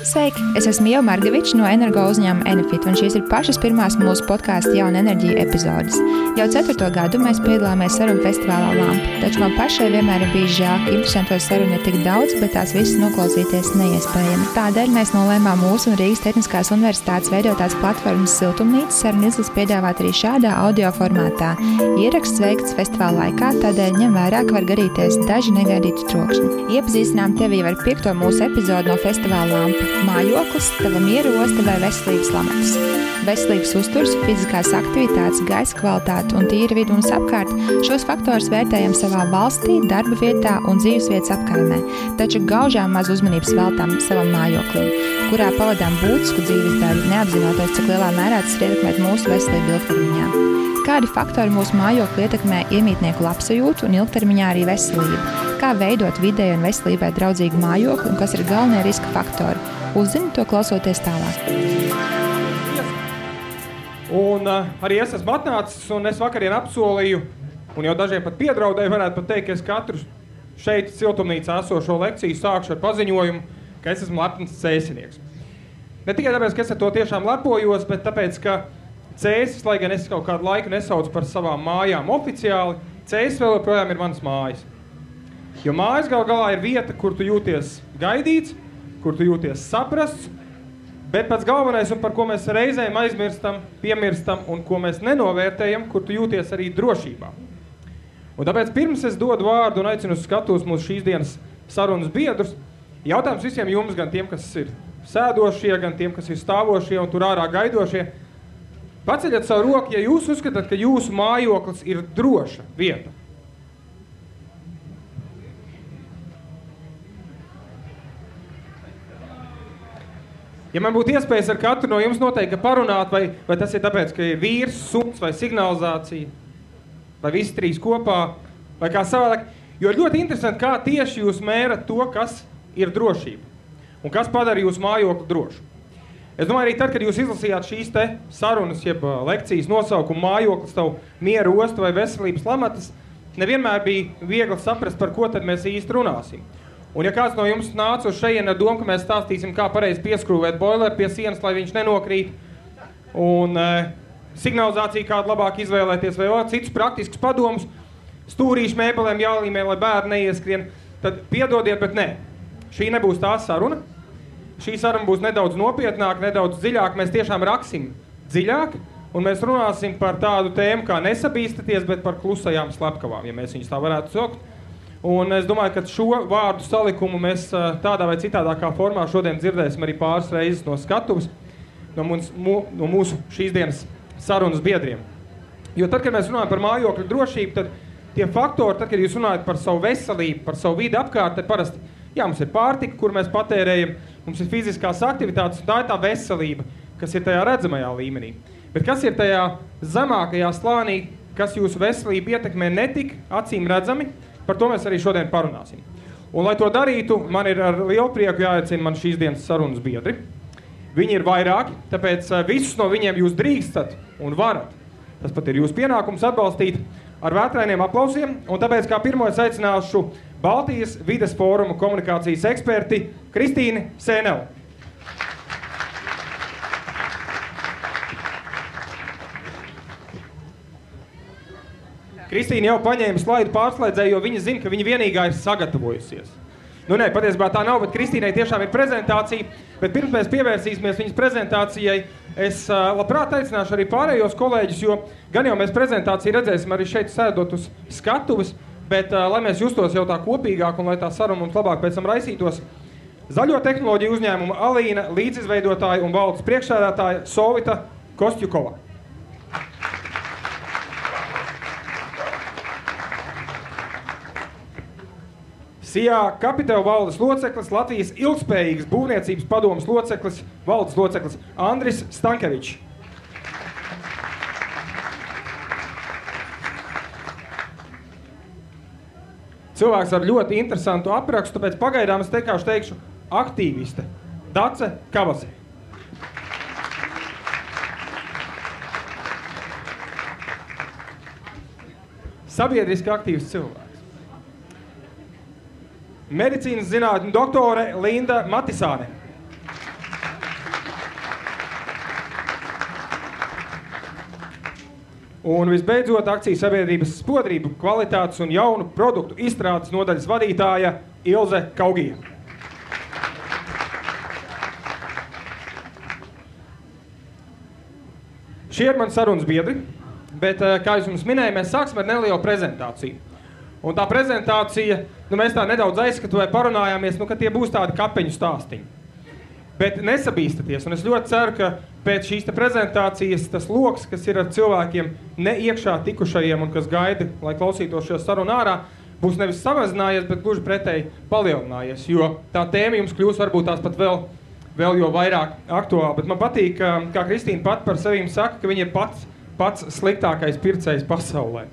Sveiki! Es esmu Ieva Margevičs no energo uzņēmuma Enefit, un šīs ir pašas pirmās mūsu podkāsta Jauna enerģija epizodes. Jau 4. gadu mēs piedalāmies sarunu festivālā Lampa, taču man pašai vienmēr ir bijis žēl, ka interesanto sarunu ir tik daudz, bet tās visas noklausīties neiespējami. Tādēļ mēs nolēmām mūsu un Rīgas Tehniskās universitātes veidotās platformas Siltumnīca sarunu izlases piedāvāt arī šādā audio formātā. Ieraksts veikts festivāla laikā, tādēļ ņem vērā, ka var gadīties daži negaidīti trokšņi. Iepazīstinām tevi ar 5. mūsu epizodu no festivāla Lampa. Mājoklis, tava miera osta vai veselības lamatas. Veselības uzturs, fiziskās aktivitātes, gaisa kvalitāte un tīra vide mums apkārt. Šos faktorus vērtējam savā valstī, darba vietā un dzīvesvietas apkaimē, taču gaužām maz uzmanības veltām savam mājoklim, kurā pavadām būtisku dzīves daļu, neapzinoties, cik lielā mērā tas ir ietekmēt mūsu veselību ilgtermiņā. Kādi faktori mūsu mājokli ietekmē iemītnieku labsajūtu un ilgtermiņā arī veselību? Kā veidot videi un veselībai draudzīgu mājokli un kas ir galvenie riska faktori? Uzzini to klausoties tālāk. Un arī es esmu atnācis, un es vakarien apsolīju, un jau dažiem pat piedraudēju, varētu pat teikt, ka es katru šeit Siltumnīcā esošo lekciju sākšu ar paziņojumu, ka es esmu lepns cēsinieks. Ne tikai tāpēc, ka es ar to tiešām lepojos, bet tāpēc, ka Cēsis, lai gan es kaut kādu laiku nesaucu par savām mājām oficiāli, Cēsis vēl joprojām ir manas mājas. Jo mājas gal galā ir vieta, kur tu jūties gaidīts, kur tu jūties saprasts, bet pats galvenais, un par ko mēs reizēm aizmirstam, piemirstam, un ko mēs nenovērtējam, kur tu jūties arī drošībā. Un tāpēc pirms es dodu vārdu un aicinu uz skatuves mūsu šīs dienas sarunas biedrus, jautājums visiem jums, gan tiem, kas ir sēdošie, gan tiem, kas ir stāvošie un tur ārā gaidošie, paceļat savu roku, ja jūs uzskatāt, ka jūsu mājoklis ir droša vieta. Ja man būtu iespējas ar katru no jums noteikti parunāt, vai tas ir tāpēc, ka ir vīrs, suns vai signalizācija, vai visi trīs kopā, vai kā savādāk, jo ir ļoti interesanti, kā tieši jūs mērat to, kas ir drošība un kas padara jūsu mājokli drošu. Es domāju, arī tad, kad jūs izlasījāt šīs te sarunas, jeb lekcijas nosaukumu mājoklis, tavu miera osta vai veselības lamatas, nevienmēr bija viegli saprast, par ko tad mēs īsti runāsim. Un ja kāds no jums nāca uz šejienu ar domu, ka mēs stāstīsim, kā pareizi pieskrūvēt boileru pie sienas, lai viņš nenokrīt, un signalizāciju kādu labāk izvēlēties, vai citus praktiskus padomus, stūrīšu mēbelēm jālīmē, lai bērni neieskrien, tad piedodiet, bet nē. Šī nebūs tā saruna. Šī saruna būs nedaudz nopietnāk, nedaudz dziļāk. Mēs tiešām raksim dziļāk, un mēs runāsim par tādu tēmu, kā nesabīstaties, bet par klusajām slepkavām, ja mēs viņus tā varētu saukt. Un es domāju, ka šo vārdu salikumu mēs tādā vai citādākā formā šodien dzirdēsim arī pāris reizes no skatuves, no mūsu šīs dienas sarunas biedriem. Jo tad, kad mēs runājam par mājokļu drošību, tad tie faktori, tad, kad jūs runājat par savu veselību, par savu vidi apkārt, tad parasti, mums ir pārtika, kur mēs patērējam, mums ir fiziskās aktivitātes, un tā ir tā veselība, kas ir tajā redzamajā līmenī. Bet kas ir tajā zemākajā slānī, kas jūsu veselību ietekmē netik acīm redzami, par to mēs arī šodien parunāsim. Un, lai to darītu, man ir ar lielu prieku jāaicina man šīs dienas sarunas biedri. Viņi ir vairāki, tāpēc visus no viņiem jūs drīkstat un varat. Tas pat ir jūsu pienākums atbalstīt ar vētrainiem aplausiem, un tāpēc kā pirmo es aicināšu Baltijas vides fóruma komunikācijas eksperti Kristīni Sēneli. Kristīna jau paņēma slaidu pārslēdzēju, jo viņa zina, ka viņa vienīgā ir sagatavojusies. Nu nē, patiesībā tā nav, bet Kristīnai tiešām ir prezentācija, bet pirms mēs pievērsīsimies viņas prezentācijai, es labprāt aicināšu arī pārējos kolēģus, jo gan jau mēs prezentāciju redzēsim arī šeit sēdot uz skatuves, bet lai mēs justos jau tā kopīgāk un lai tā saruna mums labāk pēc tam raisītos, zaļo tehnoloģiju uzņēmuma Alīna, līdzizveidotāja un valdes priekšsēdētāja Sovita Kostjukova. Sijā Capital valdes loceklis, Latvijas ilgspējīgas būvniecības padomes loceklis, valdes loceklis Andris Stankevičs. Cilvēks ar ļoti interesantu aprakstu, tāpēc pagaidām es teikšu aktīviste Dace Kavase. Sabiedriski aktīvs cilvēks. Medicīnas zinātņu doktore Linda Matisāne. Un visbeidzot, akcijas sabiedrības spodrību, kvalitātes un jaunu produktu izstrādes nodaļas vadītāja Ilze Kaugija. Šie ir mani sarunas biedri, bet, kā jūs mums minēju, mēs sāksim ar nelielu prezentāciju. Un tā prezentācija, mēs tā nedaudz aizskatu vai parunājāmies, ka tie būs tādi kapeņu stāstiņi. Bet nesabīstaties, un es ļoti ceru, ka pēc šīs prezentācijas tas loks, kas ir ar cilvēkiem ne iekšā tikušajiem un kas gaida, lai klausītos šo sarunu ārā, būs nevis samazinājies, bet gluži pretēji palielinājies, jo tā tēma jums kļūs varbūt tās pat vēl jo vairāk aktuāli. Bet man patīk, kā Kristīna pat par sevīm saka, ka viņa ir pats sliktākais pircējs pasaulē.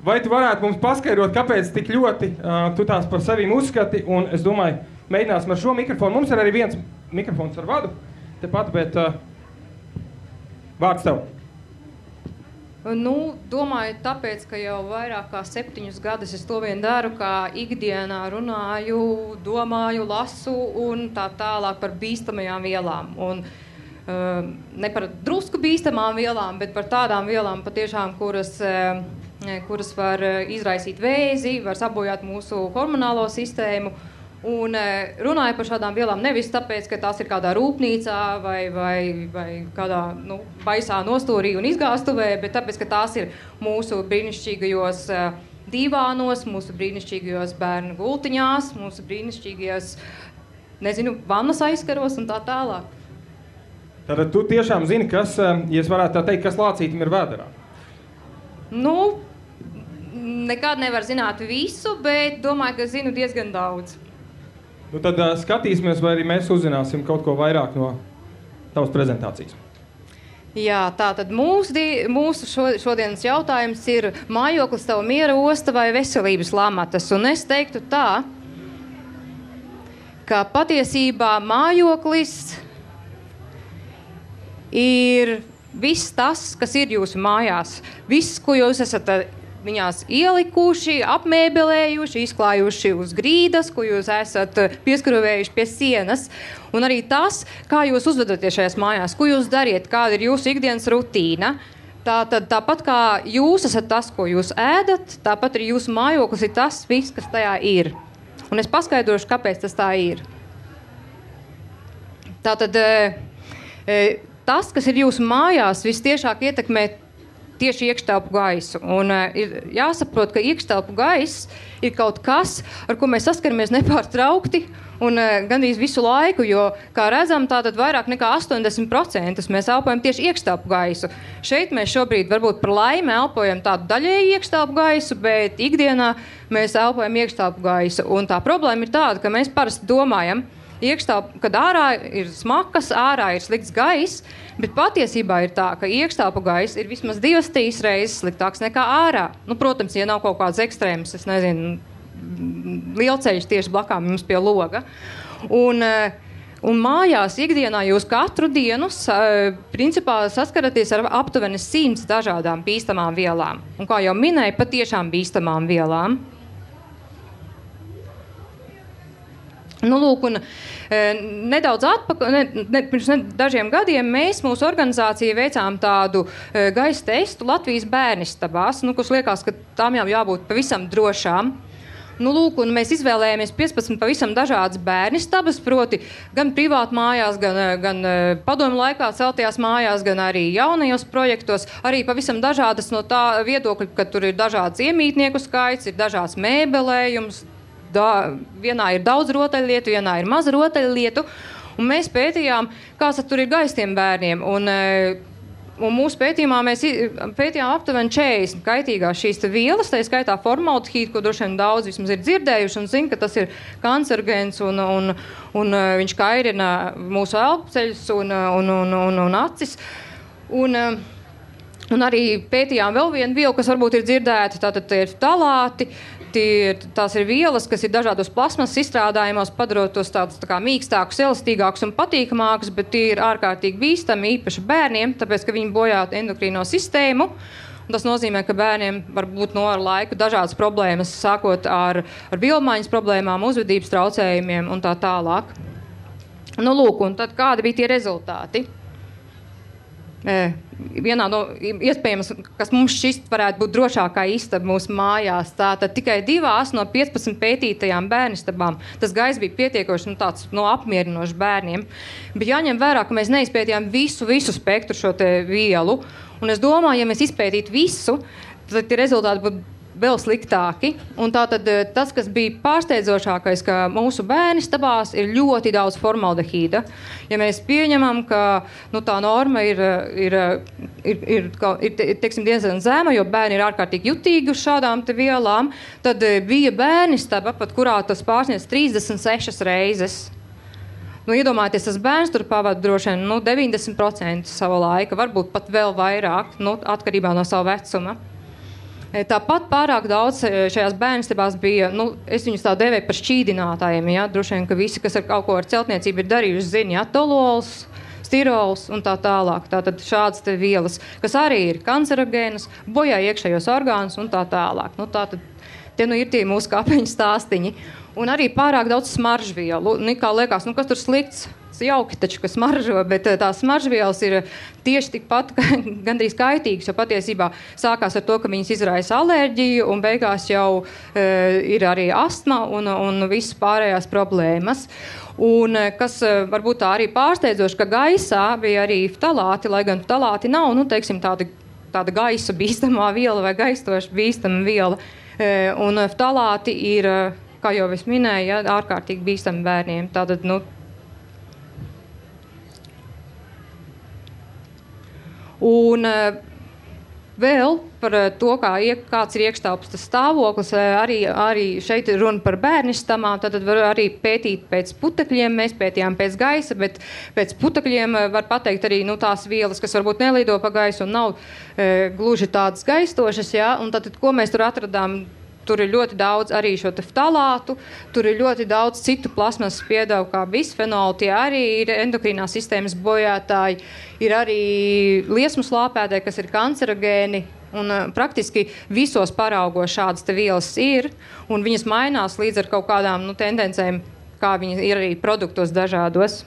Vai tu varētu mums paskaidrot, kāpēc tik ļoti tu tās par sevīm uzskati? Un es domāju, mēģināsim ar šo mikrofonu. Mums ir arī viens mikrofons ar vadu tepat, bet vārds tev. Domāju, tāpēc, ka jau vairāk kā 7 gadus es to vien daru, kā ikdienā runāju, domāju, lasu un tā tālāk par bīstamajām vielām. Un ne par drusku bīstamām vielām, bet par tādām vielām patiešām, kuras var izraisīt vēzi, var sabojāt mūsu hormonālo sistēmu. Un runāju par šādām vielām nevis tāpēc, ka tās ir kādā rūpnīcā vai kādā baisā nostūrī un izgāstuvē, bet tāpēc, ka tās ir mūsu brīnišķīgajos divānos, mūsu brīnišķīgajos bērnu gultiņās, mūsu brīnišķīgajos, vannas aizkaros un tā tālāk. Tātad tu tiešām zini, kas, ja es varētu tā teikt, kas lācītim ir vēderā? Nekad nevar zināt visu, bet domāju, ka zinu diezgan daudz. Tad skatīsimies, vai arī mēs uzzināsim kaut ko vairāk no tavas prezentācijas. Jā, tātad mūsu šodienas jautājums ir mājoklis tava miera osta vai veselības lamatas. Un es teiktu tā, ka patiesībā mājoklis ir viss tas, kas ir jūsu mājās. Viss, ko jūs esat viņās ielikuši, apmēbelējuši, izklājuši uz grīdas, ko jūs esat pieskrūvējuši pie sienas. Un arī tas, kā jūs uzvedaties šajās mājās, ko jūs dariet, kāda ir jūsu ikdienas rutīna. Tāpat kā jūs esat tas, ko jūs ēdat, tāpat arī jūsu mājoklis ir tas viss, kas tajā ir. Un es paskaidrošu, kāpēc tas tā ir. Tātad tas, kas ir jūsu mājās, vistiešāk ietekmē tieši iekštelpu gaisu. Un ir jāsaprot, ka iekštelpu gaiss ir kaut kas, ar ko mēs saskaramies nepārtraukti un gandrīz visu laiku, jo, kā redzam, tātad vairāk nekā 80% mēs elpojam tieši iekštelpu gaisu. Šeit mēs šobrīd varbūt par laimi elpojam tādu daļēju iekštelpu gaisu, bet ikdienā mēs elpojam iekštelpu gaisu. Un tā problēma ir tāda, ka mēs parasti domājam, kad ārā ir smakas, ārā ir slikts gaiss, bet patiesībā ir tā, ka iekštelpu gaiss ir vismaz 2-3 reizes sliktāks nekā ārā. Protams, ja nav kaut kāds ekstrēms, lielceļš tieši blakām jums pie loga. Un mājās ikdienā jūs katru dienu principā saskaraties ar aptuveni 100 dažādām bīstamām vielām. Un kā jau minēju, patiešām bīstamām vielām. Nedaudz pirms dažiem gadiem mēs mūsu organizācija veicām tādu gaisa testu Latvijas bērnistabās, kurš liekas, ka tām jau jābūt pavisam drošām. Un mēs izvēlējāmies 15 pavisam dažādas bērnistabas, proti gan privāti mājās, gan padomu laikā celtajās mājās, gan arī jaunajos projektos, arī pavisam dažādas no tā viedokļa, ka tur ir dažāds iemītnieku skaits, ir dažāds mēbelējums, vienā ir daudz rotaļlietu, vienā ir maza rotaļlietu, un mēs pētījām, kāds tur ir gaisa tiem bērniem, un mūsu pētījumā mēs pētījām aptuveni 40 kaitīgās šīs vielas, tā skaitā formaldehīdu, ko droši vien daudz vismaz ir dzirdējuši un zina, ka tas ir kancerogēns un viņš kairina mūsu elpceļus un acis. Un arī pētījām vēl vienu vielu, kas varbūt ir dzirdēta, tātad tie ir talāti. Tās ir vielas, kas ir dažādos plasmas izstrādājumos, padarot tos tādus tā kā mīkstākus, elastīgākus un patīkamākus, bet tie ir ārkārtīgi bīstami, īpaši bērniem, tāpēc, ka viņi bojā endokrīno sistēmu. Un tas nozīmē, ka bērniem var būt ar laiku dažādas problēmas, sākot ar vielmaiņas problēmām, uzvedības traucējumiem un tā tālāk. Un tad kādi bija tie rezultāti? vienā no iespējams, kas mums šķist varētu būt drošākā istaba mūsu mājās. Tātad tikai 2 no 15 pētītajām bērnistabām tas gaiss bija pietiekoši tāds apmierinošs bērniem. Bet jāņem vērā, ka mēs neizpētījām visu spektru šo te vielu. Un es domāju, ja mēs izpētītu visu, tad tie rezultāti būtu vēl sliktāki. Un tātad tas, kas bija pārsteidzošākais, ka mūsu bērnistabās ir ļoti daudz formaldehīda. Ja mēs pieņemam, ka tā norma ir teiksim, diezgan zema, jo bērni ir ārkārtīgi jutīgi uz šādām te vielām, tad bija bērnistaba, pat kurā tas pārsniedz 36 reizes. Iedomājieties, tas bērns tur pavada droši vien 90% sava laika, varbūt pat vēl vairāk, atkarībā no sava vecuma. Tāpat pārāk daudz šajās bērnistabās bija, es viņus tā devēju par šķīdinātājiem, ja? Droši vien, ka visi, kas ar kaut ko ar celtniecību ir darījuši, zina, ja? Tolols, stirols un tā tālāk. Tātad šādas te vielas, kas arī ir kancerogēnas, bojā iekšējos orgānus un tā tālāk. Tātad tie ir tie mūsu kāpeņu stāstiņi. Un arī pārāk daudz smaržvielu. Kā liekas, kas tur slikts? Jauki taču, ka smaržo, bet tās smaržvielas ir tieši tikpat gandrīz kaitīgas, jo patiesībā sākās ar to, ka viņas izraisa alerģiju un beigās jau ir arī astma un visas pārējās problēmas. Un kas varbūt tā arī pārsteidzoši, ka gaisā bija arī ftalāti, lai gan ftalāti nav, teiksim, tāda gaisa bīstamā viela vai gaistoša bīstama viela. Un ftalāti ir, kā jau es minēju, ja, ārkārtīgi bīstami bērniem. Tātad, un vēl par to, kāds ir iekštelpas stāvoklis, arī šeit ir runa par bērnistamām, tad var arī pētīt pēc putekļiem, mēs pētījām pēc gaisa, bet pēc putekļiem var pateikt arī tās vielas, kas varbūt nelido pa gaisu un nav gluži tādas gaistošas, ja? Un tad, ko mēs tur atradām? Tur ir ļoti daudz arī šo te ftalātu, tur ir ļoti daudz citu plasmas piedevu kā bisfenolu, tie arī ir endokrīnās sistēmas bojātāji, ir arī liesmu slāpētāji, kas ir kancerogēni, un praktiski visos paraugos šādas te vielas ir, un viņas mainās līdz ar kaut kādām tendencēm, kā viņi ir arī produktos dažādos.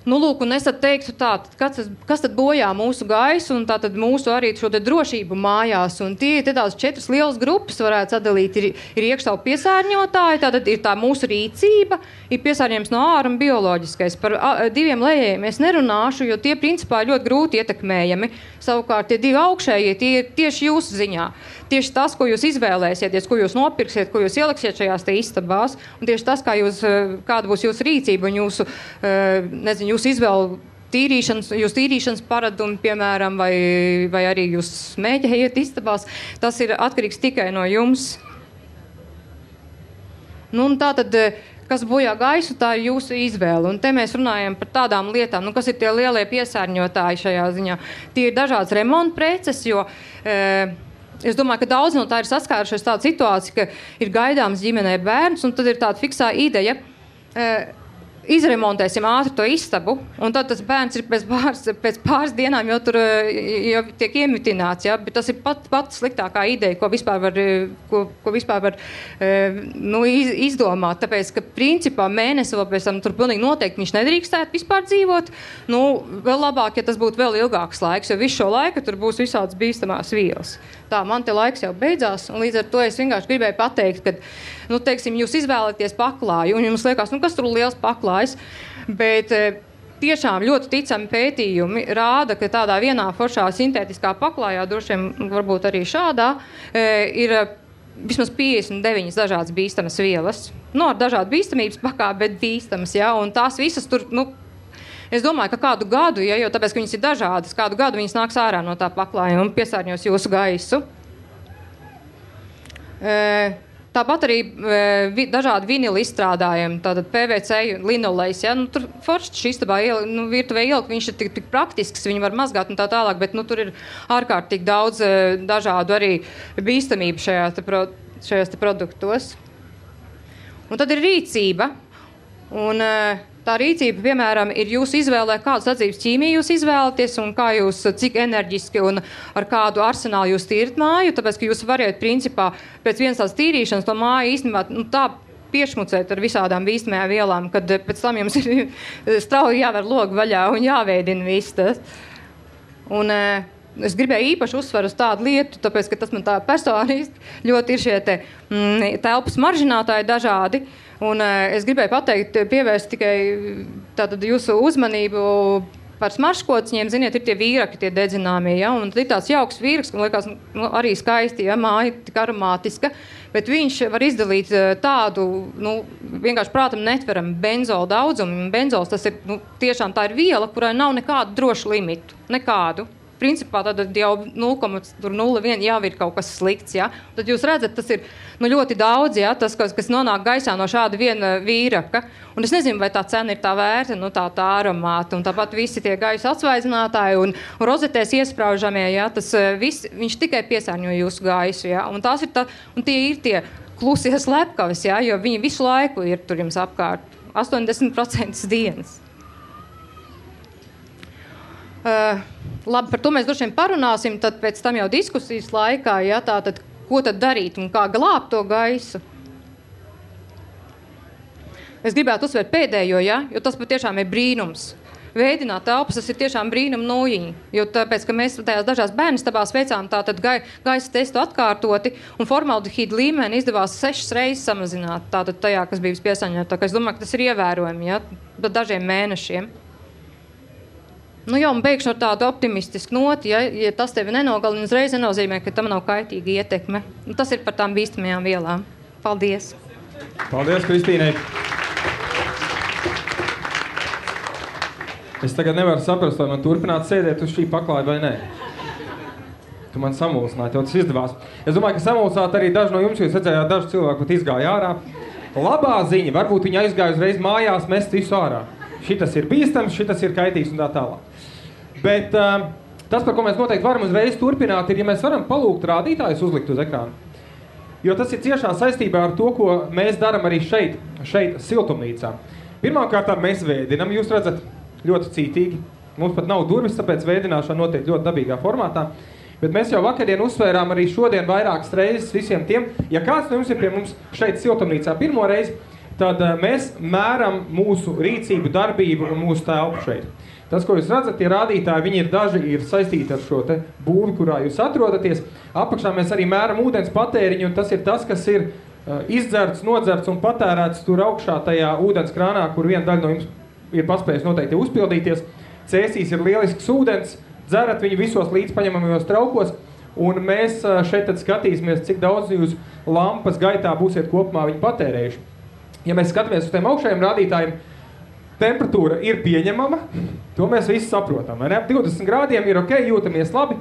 Lūk, un es tad teiktu tā, kas tad bojā mūsu gaisu un tātad mūsu arī šo te drošību mājās. Un tie ir tās 4 lielas grupas, varētu sadalīt. Ir iekštelpu piesārņotāji, tātad ir tā mūsu rīcība, ir piesārņojums no ārā un bioloģiskais. Par 2 lejējiem es nerunāšu, jo tie principā ir ļoti grūti ietekmējami. Savukārt tie 2 augšējie, tie ir tieši jūsu ziņā. Tieši tas, ko jūs izvēlēsieties, ko jūs nopirksiet, ko jūs ieliksiet šajās te istabās, un tieši tas, kāda būs jūsu rīcība un jūsu izvēle tīrīšanas paradumi, piemēram, vai arī jūs smēķējat istabās, tas ir atkarīgs tikai no jums. Un tātad, kas bojā gaisu, tā ir jūsu izvēle. Un te mēs runājam par tādām lietām, kas ir tie lielie piesārņotāji šajā ziņā. Tie ir dažādas remonta preces, jo es domāju, ka daudz no tā ir saskārušies tāda situācija, ka ir gaidāms ģimenē bērns, un tad ir tāda fiksā ideja, izremontēsim ātri to istabu, un tad tas bērns ir pēc pāris dienām jau tur jau tiek iemitināts, ja? Bet tas ir pat sliktākā ideja, ko vispār var izdomāt, tāpēc, ka principā mēnesi vēl pēc tam tur pilnīgi noteikti viņš nedrīkstētu vispār dzīvot. Vēl labāk, ja tas būtu vēl ilgāks laiks, jo visu šo laiku tur būs visādas bīstamās vielas. Tā, man te laiks jau beidzās, un līdz ar to es vienkārši gribēju pateikt, ka, teiksim, jūs izvēlaties paklāju, un jums liekas, kas tur liels paklājs, bet tiešām ļoti ticami pētījumi rāda, ka tādā vienā foršā sintētiskā paklājā, droši vien varbūt arī šādā, ir vismaz 59 dažādas bīstamas vielas. Ar dažādu bīstamības pakāpi, bet bīstamas, ja, un tās visas tur, es domāju, ka kādu gadu, ja, jo tāpēc, ka viņas ir dažādas, kādu gadu viņas nāks ārā no tā paklājuma un piesārņos jūsu gaisu. Tāpat arī dažādi vinili izstrādājumi, tātad PVC, linolejs, ja, tur forši šī istabā virtuvē ielikt, viņš ir tik praktisks, viņi var mazgāt un tā tālāk, bet tur ir ārkārtīgi daudz dažādu arī bīstamību šajās te produktos. Un tad ir rīcība, un tā rīcība, piemēram, ir jūsu izvēlē, kādu sadzīves ķīmiju jūs izvēlaties un cik enerģiski un ar kādu arsenālu jūs tīrat māju, tāpēc, ka jūs variet principā pēc vienas tās tīrīšanas to māju īstenībā tā piešmucēt ar visādām bīstamajām vielām, kad pēc tam jums ir strauji jāver logu vaļā un jāveidina viss tas. Un es gribēju īpaši uzsveru uz tādu lietu, tāpēc, ka tas man tā personiski ļoti ir šie telpas maržinātāji dažādi. Un es gribēju pateikt, pievērst tikai tātad jūsu uzmanību par smaržkociņiem. Ziniet, ir tie vīraki, tie dedzināmie, ja? Un ir tāds jauks vīraks, man liekas, arī skaisti, ja? Māja tik aromātiska, bet viņš var izdalīt tādu, vienkārši prātam netveram benzola daudzumu. Benzols, tas ir, tiešām tā ir viela, kurai nav nekādu drošu limitu, nekādu. Principā tad jau 0,01 jau ir kaut kas slikts, ja? Tad jūs redzat, tas ir ļoti daudz, ja? Tas, kas nonāk gaisā no šāda viena vīraka. Un es nezinu, vai tā cena ir tā vērta, tā aromāta. Un tāpat visi tie gaisa atsvaidzinātāji un rozetēs iespraužamie, ja? Tas viss, viņš tikai piesārņo jūsu gaisu, ja? Un tie ir tie klusie slepkavis, ja? Jo viņi visu laiku ir tur jums apkārt. 80% dienas. Labi, par to mēs droši vien parunāsim, tad pēc tam jau diskusijas laikā, ja, tātad, ko tad darīt un kā glābt to gaisu. Es gribētu uzsvērt pēdējo, ja, jo tas patiešām ir brīnums. Veidināt telpas, tas ir tiešām brīnum nūjiņi, jo tāpēc, ka mēs tajās dažās bērnistabās veicām tātad gaisa testu atkārtoti un formaldehīdu līmeni izdevās 6 reizes samazināt tātad tajā, kas bija piesārņota. Tā kā es domāju, ka tas ir ievērojami, ja, pa dažiem mēnešiem. Un beigšu ar tādu optimistisku noti, ja tas tevi nenogalina, uzreiz nenozīmē, ka tam nav kaitīga ietekme. Tas ir par tām bīstamajām vielām. Paldies! Paldies, Kristīnai! Es tagad nevaru saprast, vai man turpināt sēdēt uz šī paklāja vai nē. Tu man samulsināji, tev tas izdevās. Es domāju, ka samulsāt arī daži no jums, jo es redzējāt, daži cilvēki pat izgāja ārā. Labā ziņa, varbūt viņi aizgāja uzreiz mājās mest visu ārā. Šitas ir bīstams, šitas ir kaitīgs un tā tālāk. Bet tas, par ko mēs noteikti varam uzreiz turpināt, ir, ja mēs varam palūgt rādītājus uzlikt uz ekrānu. Jo tas ir ciešā saistībā ar to, ko mēs daram arī šeit siltumnīcā. Pirmkārt, mēs vēdinam, jūs redzat, ļoti cītīgi. Mums pat nav durvis, tāpēc vēdināšana notiek ļoti dabīgā formātā. Bet mēs jau vakardien uzsvērām arī šodien vairākas reizes visiem tiem. Ja kāds no jums ir pie mums šeit siltumnīcā pirmo reizi, tad mēs mēram mūsu rīcību, darbību un mūsu telpu šeit. Tas, ko jūs redzat, tie rādītāji, viņi daži ir saistīti ar šo te būvi, kurā jūs atrodaties. Apakšā mēs arī mēram ūdens patēriņu, un tas ir tas, kas ir izdzerts, nodzerts un patērēts tur augšā tajā ūdens krānā, kur viena daļa no jums ir paspējis noteikti uzpildīties. Cēsīs ir lielisks ūdens, dzerat viņu visos līdzpaņemamajos traukos, un mēs šeit tad skatīsimies, cik daudz jūs lampas gaitā būsiet kopumā viņi patērējuši. Ja mēs skatāmies uz tiem augšējiem rādītājiem, temperatūra ir pieņemama, to mēs visi saprotam. 20 grādiem ir ok, jūtamies labi,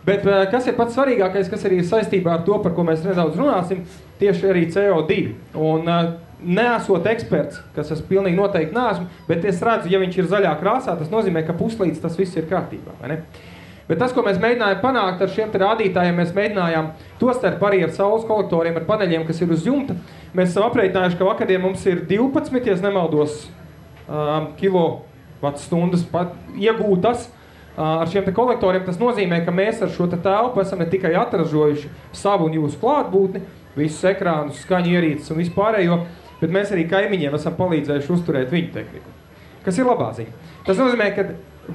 bet kas ir pats svarīgākais, kas arī ir saistībā ar to, par ko mēs nedaudz runāsim, tieši arī CO2. Un neesot eksperts, kas es pilnīgi noteikti neesmu, bet es redzu, ja viņš ir zaļā krāsā, tas nozīmē, ka puslīdz tas viss ir kārtībā, vai ne? Bet tas, ko mēs mēģinājām panākt ar šiem rādītājiem, mēs mēģinājām tostarp arī ar saules kolektoriem, ar paneļiem, kas ir uz jumta. Mēs esam aprēķinājuši, ka vakardien mums ir 12, ja nemaldos, kilovatstundas iegūtas ar šiem kolektoriem. Tas nozīmē, ka mēs ar šo telpu esam ne tikai atražojuši savu un jūsu klātbūtni, visus ekrānus, skaņu ierīces un vispārējo, bet mēs arī kaimiņiem esam palīdzējuši uzturēt viņu tehniku. Kas ir labā ziņa? Tas nozīmē, ka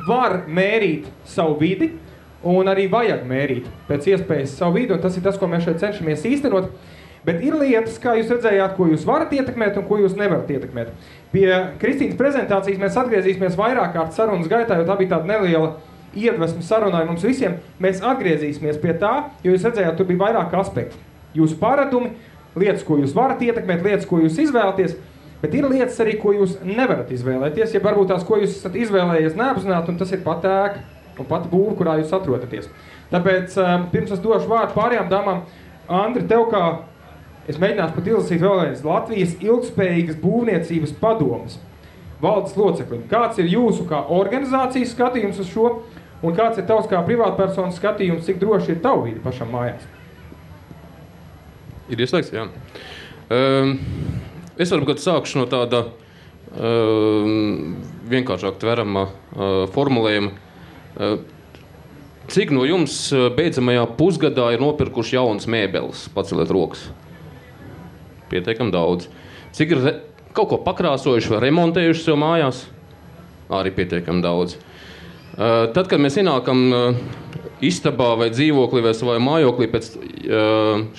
var mērīt savu vidi un arī vajag mērīt pēc iespējas savu vidi, un tas ir tas, ko mēs šeit cenšamies īstenot. Bet ir lietas, kā jūs redzējāt, ko jūs varat ietekmēt un ko jūs nevarat ietekmēt. Pie Kristīnas prezentācijas mēs atgriezīsimies vairāk kārt sarunas gaitā, jo tā bija tāda neliela iedvesma sarunai mums visiem. Mēs atgriezīsimies pie tā, jo jūs redzējāt, tur bija vairāk aspekti. Jūsu paradumi, lietas, ko jūs varat ietekmēt, lietas, ko jūs izvēlaties, bet ir lietas arī, ko jūs nevarat izvēlēties, ja varbūt tās, ko jūs esat izvēlējies neapzināti, un tas ir pat ēka un pat būva, kurā jūs atrodaties. Tāpēc pirms es došu vārdu pārējām dāmām, Andri, tev kā es mēģināšu pat izlasīt vēlreiz Latvijas ilgspējīgas būvniecības padomes valdes loceklim. Kāds ir jūsu kā organizācijas skatījums uz šo, un kāds ir tavs kā privātpersonas skatījums, cik droši ir tavu vidi pašam mājās? Ir ieslēgts, jā. Es varbūt sākšu no tāda vienkāršāk tverama formulējuma. Cik no jums beidzamajā pusgadā ir nopirkuši jaunas mēbeles? Paceliet rokas. Pietiekam daudz. cik ir kaut ko pakrāsojuši vai remontējuši sev mājās, arī pietiekami daudz. Tad, kad mēs ienākam istabā vai dzīvoklī vai savā mājoklī pēc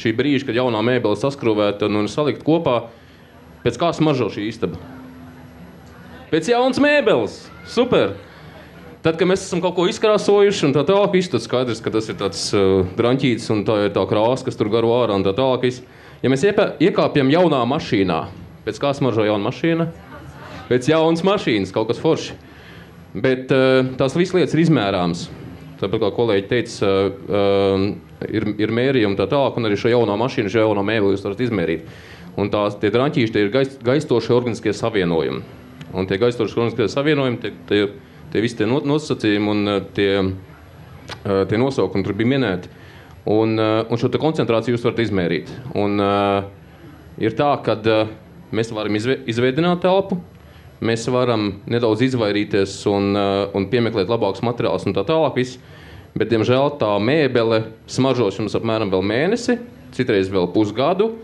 šī brīža, kad jaunā mēbele saskrūvēta un salikt kopā, pēc kā smaržo šī istaba? Pēc jaunas mēbeles. Super! Tad, kad mēs esam kaut ko izkrāsojuši un tā tālāk, viss tad skaidrs, ka tas ir tāds draņķītis un tā ir tā krāsa, kas tur garo ārā un tā tālāk. Ja mēs iekāpjam jaunā mašīnā, pēc kā smaržo jauna mašīna? Pēc jaunas mašīnas, kaut kas forši. Bet tās visas lietas ir izmērāmas. Tāpēc, kā kolēģi teica, ir mērījumi tā tālāk, un arī šo jauno mašīnu, šo jauno mēbeli jūs varat izmērīt. Un tie draņķīši, tie ir gaistošie organiskie savienojumi. Un tie gaistošie organiskie savienojumi, tie visi tie nosacījumi un tie nosaukumi tur bija minēti. Un šo te koncentrāciju jūs varat izmērīt. Un ir tā, kad mēs varam izveidināt telpu, mēs varam nedaudz izvairīties un piemeklēt labākus materiālus un tā tālāk viss. Bet, diemžēl, tā mēbele smaržos jums apmēram vēl mēnesi, citreiz vēl pusgadu.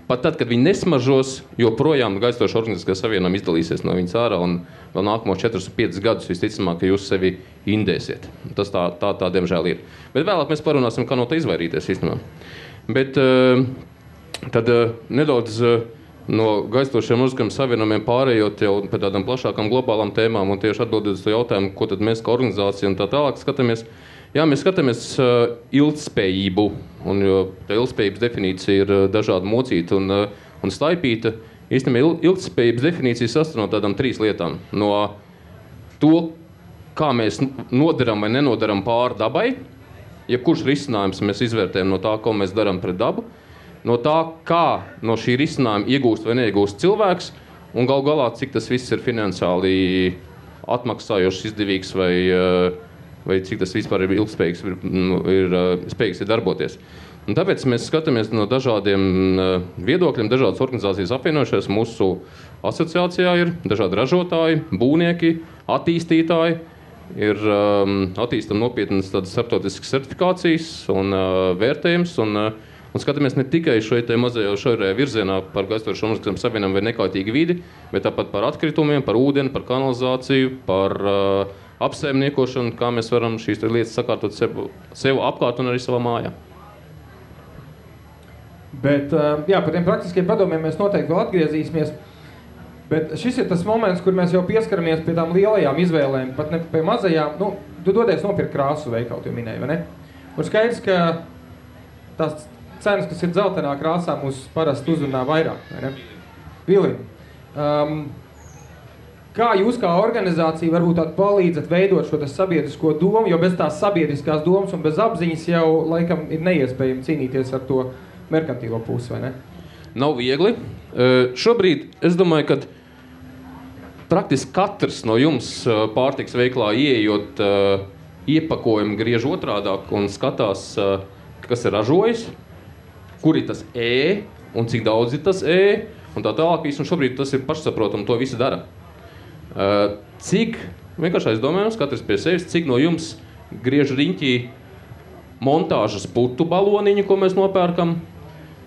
Pat tad, kad viņi nesmaržos, joprojām gaistoši organiskie savienojumi izdalīsies no viņas ārā un vēl nākamos 4-5 gadus visticamāk, ka jūs sevi indēsiet. Tas tā diemžēl ir. Bet vēlāk mēs parunāsim, kā no tā izvairīties īstenībā. Bet tad nedaudz no gaistošiem organiskiem savienojumiem pārējot jau pēc tādām plašākām globālām tēmām un tieši atbildot uz to jautājumu, ko tad mēs kā organizācija un tā tālāk skatāmies. Jā, mēs skatāmies ilgtspējību, un jo tā ilgtspējības definīcija ir dažādi mocīta un staipīta. Īstenībā ilgtspējības definīcija sastāv no tādām 3 lietām. No to, kā mēs nodaram vai nenodaram pāri dabai, jebkurš risinājums mēs izvērtējam no tā, ko mēs darām pret dabu, no tā, kā no šī risinājuma iegūst vai neiegūst cilvēks, un gal galā, cik tas viss ir finansiāli atmaksājošs, izdevīgs vai cik tas vispār ir ilgspējīgs, ir spējīgs darboties. Un tāpēc mēs skatāmies no dažādiem viedokļiem, dažādas organizācijas apvienojušies. Mūsu asociācijā ir dažādi ražotāji, būvnieki, attīstītāji, ir attīstam nopietnas tādas starptautiskas certifikācijas un vērtējums, un skatāmies ne tikai šajā mazajā šaurajā virzienā par gaistošu organiskiem savienojumiem vai nekaitīgu vidi, bet tāpat par atkritumiem, par ūdeni, par kanalizāciju, par apsaimniekošanu, kā mēs varam šīs lietas sakārtot sev apkārt un arī savā mājā. Bet, jā, par tiem praktiskiem padomiem mēs noteikti vēl atgriezīsimies. Bet šis ir tas moments, kur mēs jau pieskaramies pie tām lielajām izvēlēm, pat ne pie mazajām. Nu, tu dodies nopirkt krāsu veikalu, tu minēji, vai ne? Un skaidrs, ka tās cenas, kas ir dzeltenā krāsā, mūs parasti uzrunā vairāk, vai ne? Vilini, kā jūs kā organizācija varbūt palīdzat veidot šo sabiedrisko domu, jo bez tās sabiedriskās domas un bez apziņas jau laikam ir neiespējami cīnīties ar to merkantīlo pusi, vai ne? Nav viegli. Šobrīd es domāju, ka praktiski katrs no jums pārtiks veiklā ieejot iepakojumu griež otrādāk un skatās, kas ir ražojis, kur ir tas un cik daudz ir tas un tā tālāk. Un šobrīd tas ir pašsaprotami, to visi dara. Cik, vienkārši aizdomājums, katrs pie sevis, cik no jums griež riņķī montāžas putu baloniņu, ko mēs nopērkam,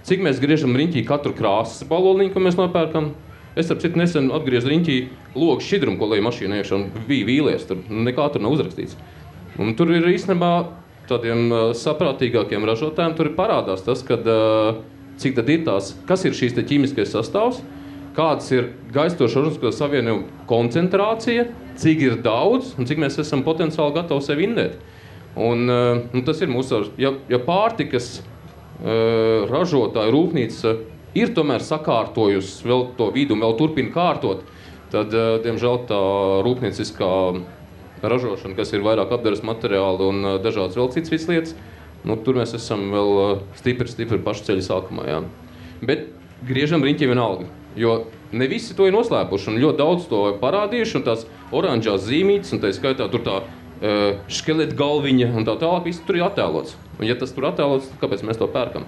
cik mēs griežam riņķī katru krāsas baloniņu, ko mēs nopērkam. Es ar citu nesen atgriezu riņķī logu šķidrumu, ko leju mašīnā iekšā, un bija vīlies, tur nekā tur nav uzrakstīts. Un tur ir īstenībā tādiem saprātīgākiem ražotājiem, tur ir parādās tas, kad, cik tad ir tās, kas ir šīs te ķīmiskais sastāvs, kāds ir gaistošu organisko savienojumu koncentrācija, cik ir daudz un cik mēs esam potenciāli gatavi sevi indēt. Un tas ir mūsu, ja pārtikas ražotāja rūpnīca ir tomēr sakārtojusi vēl to vidu un vēl turpina kārtot, tad, diemžēl, tā rūpnieciskā ražošana, kas ir vairāk apdares materiāli un dažādas vēl citas lietas, tur mēs esam vēl stipri pašu ceļu sākumā. Jā. Bet griežam riņķi vienalga, jo ne visi to ir noslēpuši un ļoti daudz to parādījuši, un tās oranžās zīmītes, un tā skaitā tur tā škeleta galviņa un tā tālāk, viss tur ir attēlots. Un ja tas tur attēlots, tad kāpēc mēs to pērkam?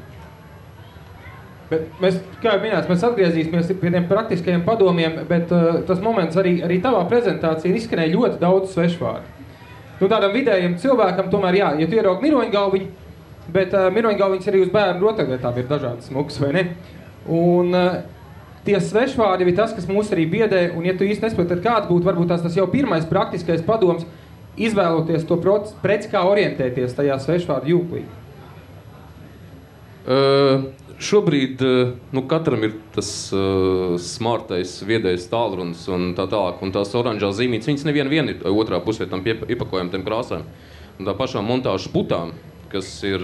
Bet mēs, kā jau minēts, mēs atgriezīsimies pie tiem praktiskajiem padomiem, bet tas moments arī tavā prezentācijā ir izskanēja ļoti daudz svešvārdu. Tādam vidējam cilvēkam tomēr jā, ja tu ieraugi miroņgalviņu, bet miroņgalviņas arī uz bērnu rotaļlietām ir dažādas smukas, vai ne? Un tie svešvārdi ir tas, kas mūs arī biedē, un ja tu īsti nespēj, tad kāds būtu varbūt tas jau pirmais praktiskais padoms, izvēloties to preci, kā orientēties tajā svešvārdu jūklī? Šobrīd katram ir tas smartais, viedais tālrunis un tā tālāk, un tās oranžās zīmītes, viņas neviena ir otrā pusē tam iepakojam tiem krāsām. Un tā pašām montāžas putām, kas ir,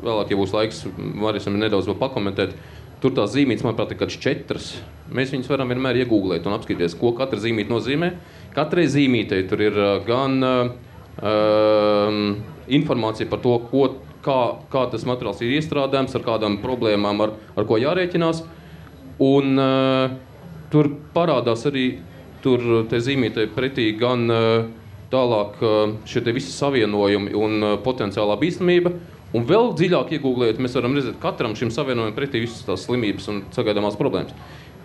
vēlāk, ja būs laiks, varēsim nedaudz vēl pakomentēt, tur tās zīmītes, manuprāt, ir kāds 4. Mēs viņus varam vienmēr iegūglēt un apskatīties, ko katra zīmīte nozīmē. Katrai zīmītei tur ir gan informācija par to, kā tas materiāls ir iestrādājams, ar kādām problēmām, ar ko jārēķinās. Un tur parādās arī te zīmītei pretī gan tālāk šie te visi savienojumi un potenciālā bīstamība. Un vēl dziļāk iegūglējot, mēs varam redzēt katram šim savienojumam pretī visas tās slimības un sagaidāmās problēmas.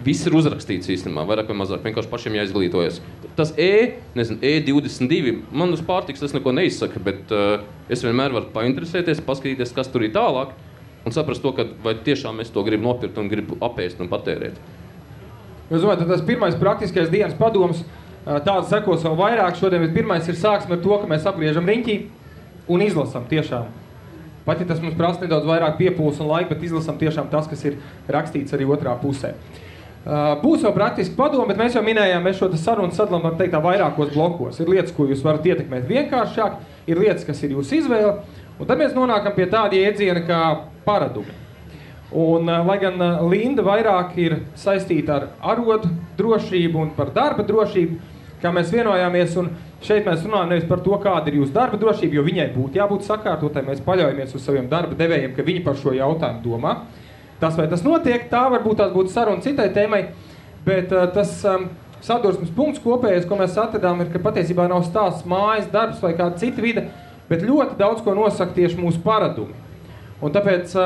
Viss ir uzrakstīts īstenībā, vairāk vai mazāk, vienkārši pašiem jāizglītojas. Tas E22, man uz pārtiks tas neko neizsaka, bet es vienmēr varu painteresēties, paskatīties, kas tur ir tālāk, un saprast to, ka vai tiešām es to gribu nopirkt un gribu apēst un patērēt. Es domāju, tas pirmais praktiskais dienas padoms, tāds sekos vēl vairāk šodien, bet pirmais ir sāksim ar to, ka mēs apgriežam riņķī un izlasam tiešām. Pat ja tas mums prasa nedaudz vairāk piepūles un laika, bet izlasam tiešām tas, kas ir rakstīts arī otrā pusē. Būs vēl praktiski padomi, bet mēs jau minējām, mēs šo sarunu sadalām, var teikt, vairākos blokos. Ir lietas, ko jūs varat ietekmēt vienkāršāk, ir lietas, kas ir jūsu izvēle, un tad mēs nonākam pie tāda iedziena kā paradumi. Un, lai gan Linda vairāk ir saistīta ar arodu drošību un par darba drošību, kā mēs vienojāmies, un šeit mēs runājam nevis par to, kāda ir jūsu darba drošība, jo viņai būtu jābūt sakārtotai, mēs paļaujamies uz saviem darba devējiem, ka viņi par šo jautājumu domā. Tas, vai tas notiek, tā varbūt tās būtu saruna citai tēmai, bet tas sadursmes punkts kopējais, ko mēs atradām, ir, ka patiesībā nav stāsts mājas, darbs vai kāda cita vide, bet ļoti daudz ko nosaka tieši mūsu paradumi. Un tāpēc,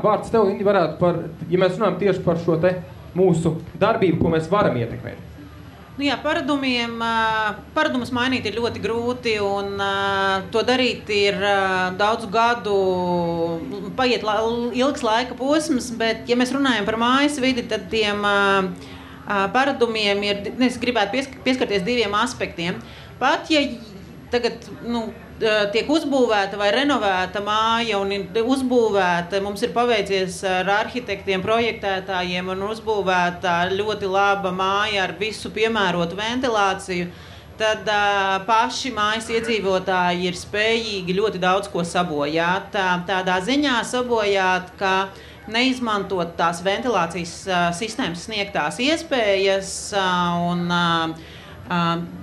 vārds tev, Indi, varētu ja mēs runājam tieši par šo te mūsu darbību, ko mēs varam ietekmēt. Paradumus mainīt ir ļoti grūti, un to darīt ir daudzu gadu, paiet ilgs laika posms, bet, ja mēs runājam par mājas vidi, tad tiem paradumiem es gribētu pieskarties 2 aspektiem. Pat, ja tagad, tiek uzbūvēta vai renovēta māja un ir uzbūvēta, mums ir paveicies ar arhitektiem, projektētājiem un uzbūvēta ļoti laba māja ar visu piemērotu ventilāciju, tad paši mājas iedzīvotāji ir spējīgi ļoti daudz ko sabojāt. Tādā ziņā sabojāt, ka neizmantot tās ventilācijas sistēmas sniegtās iespējas un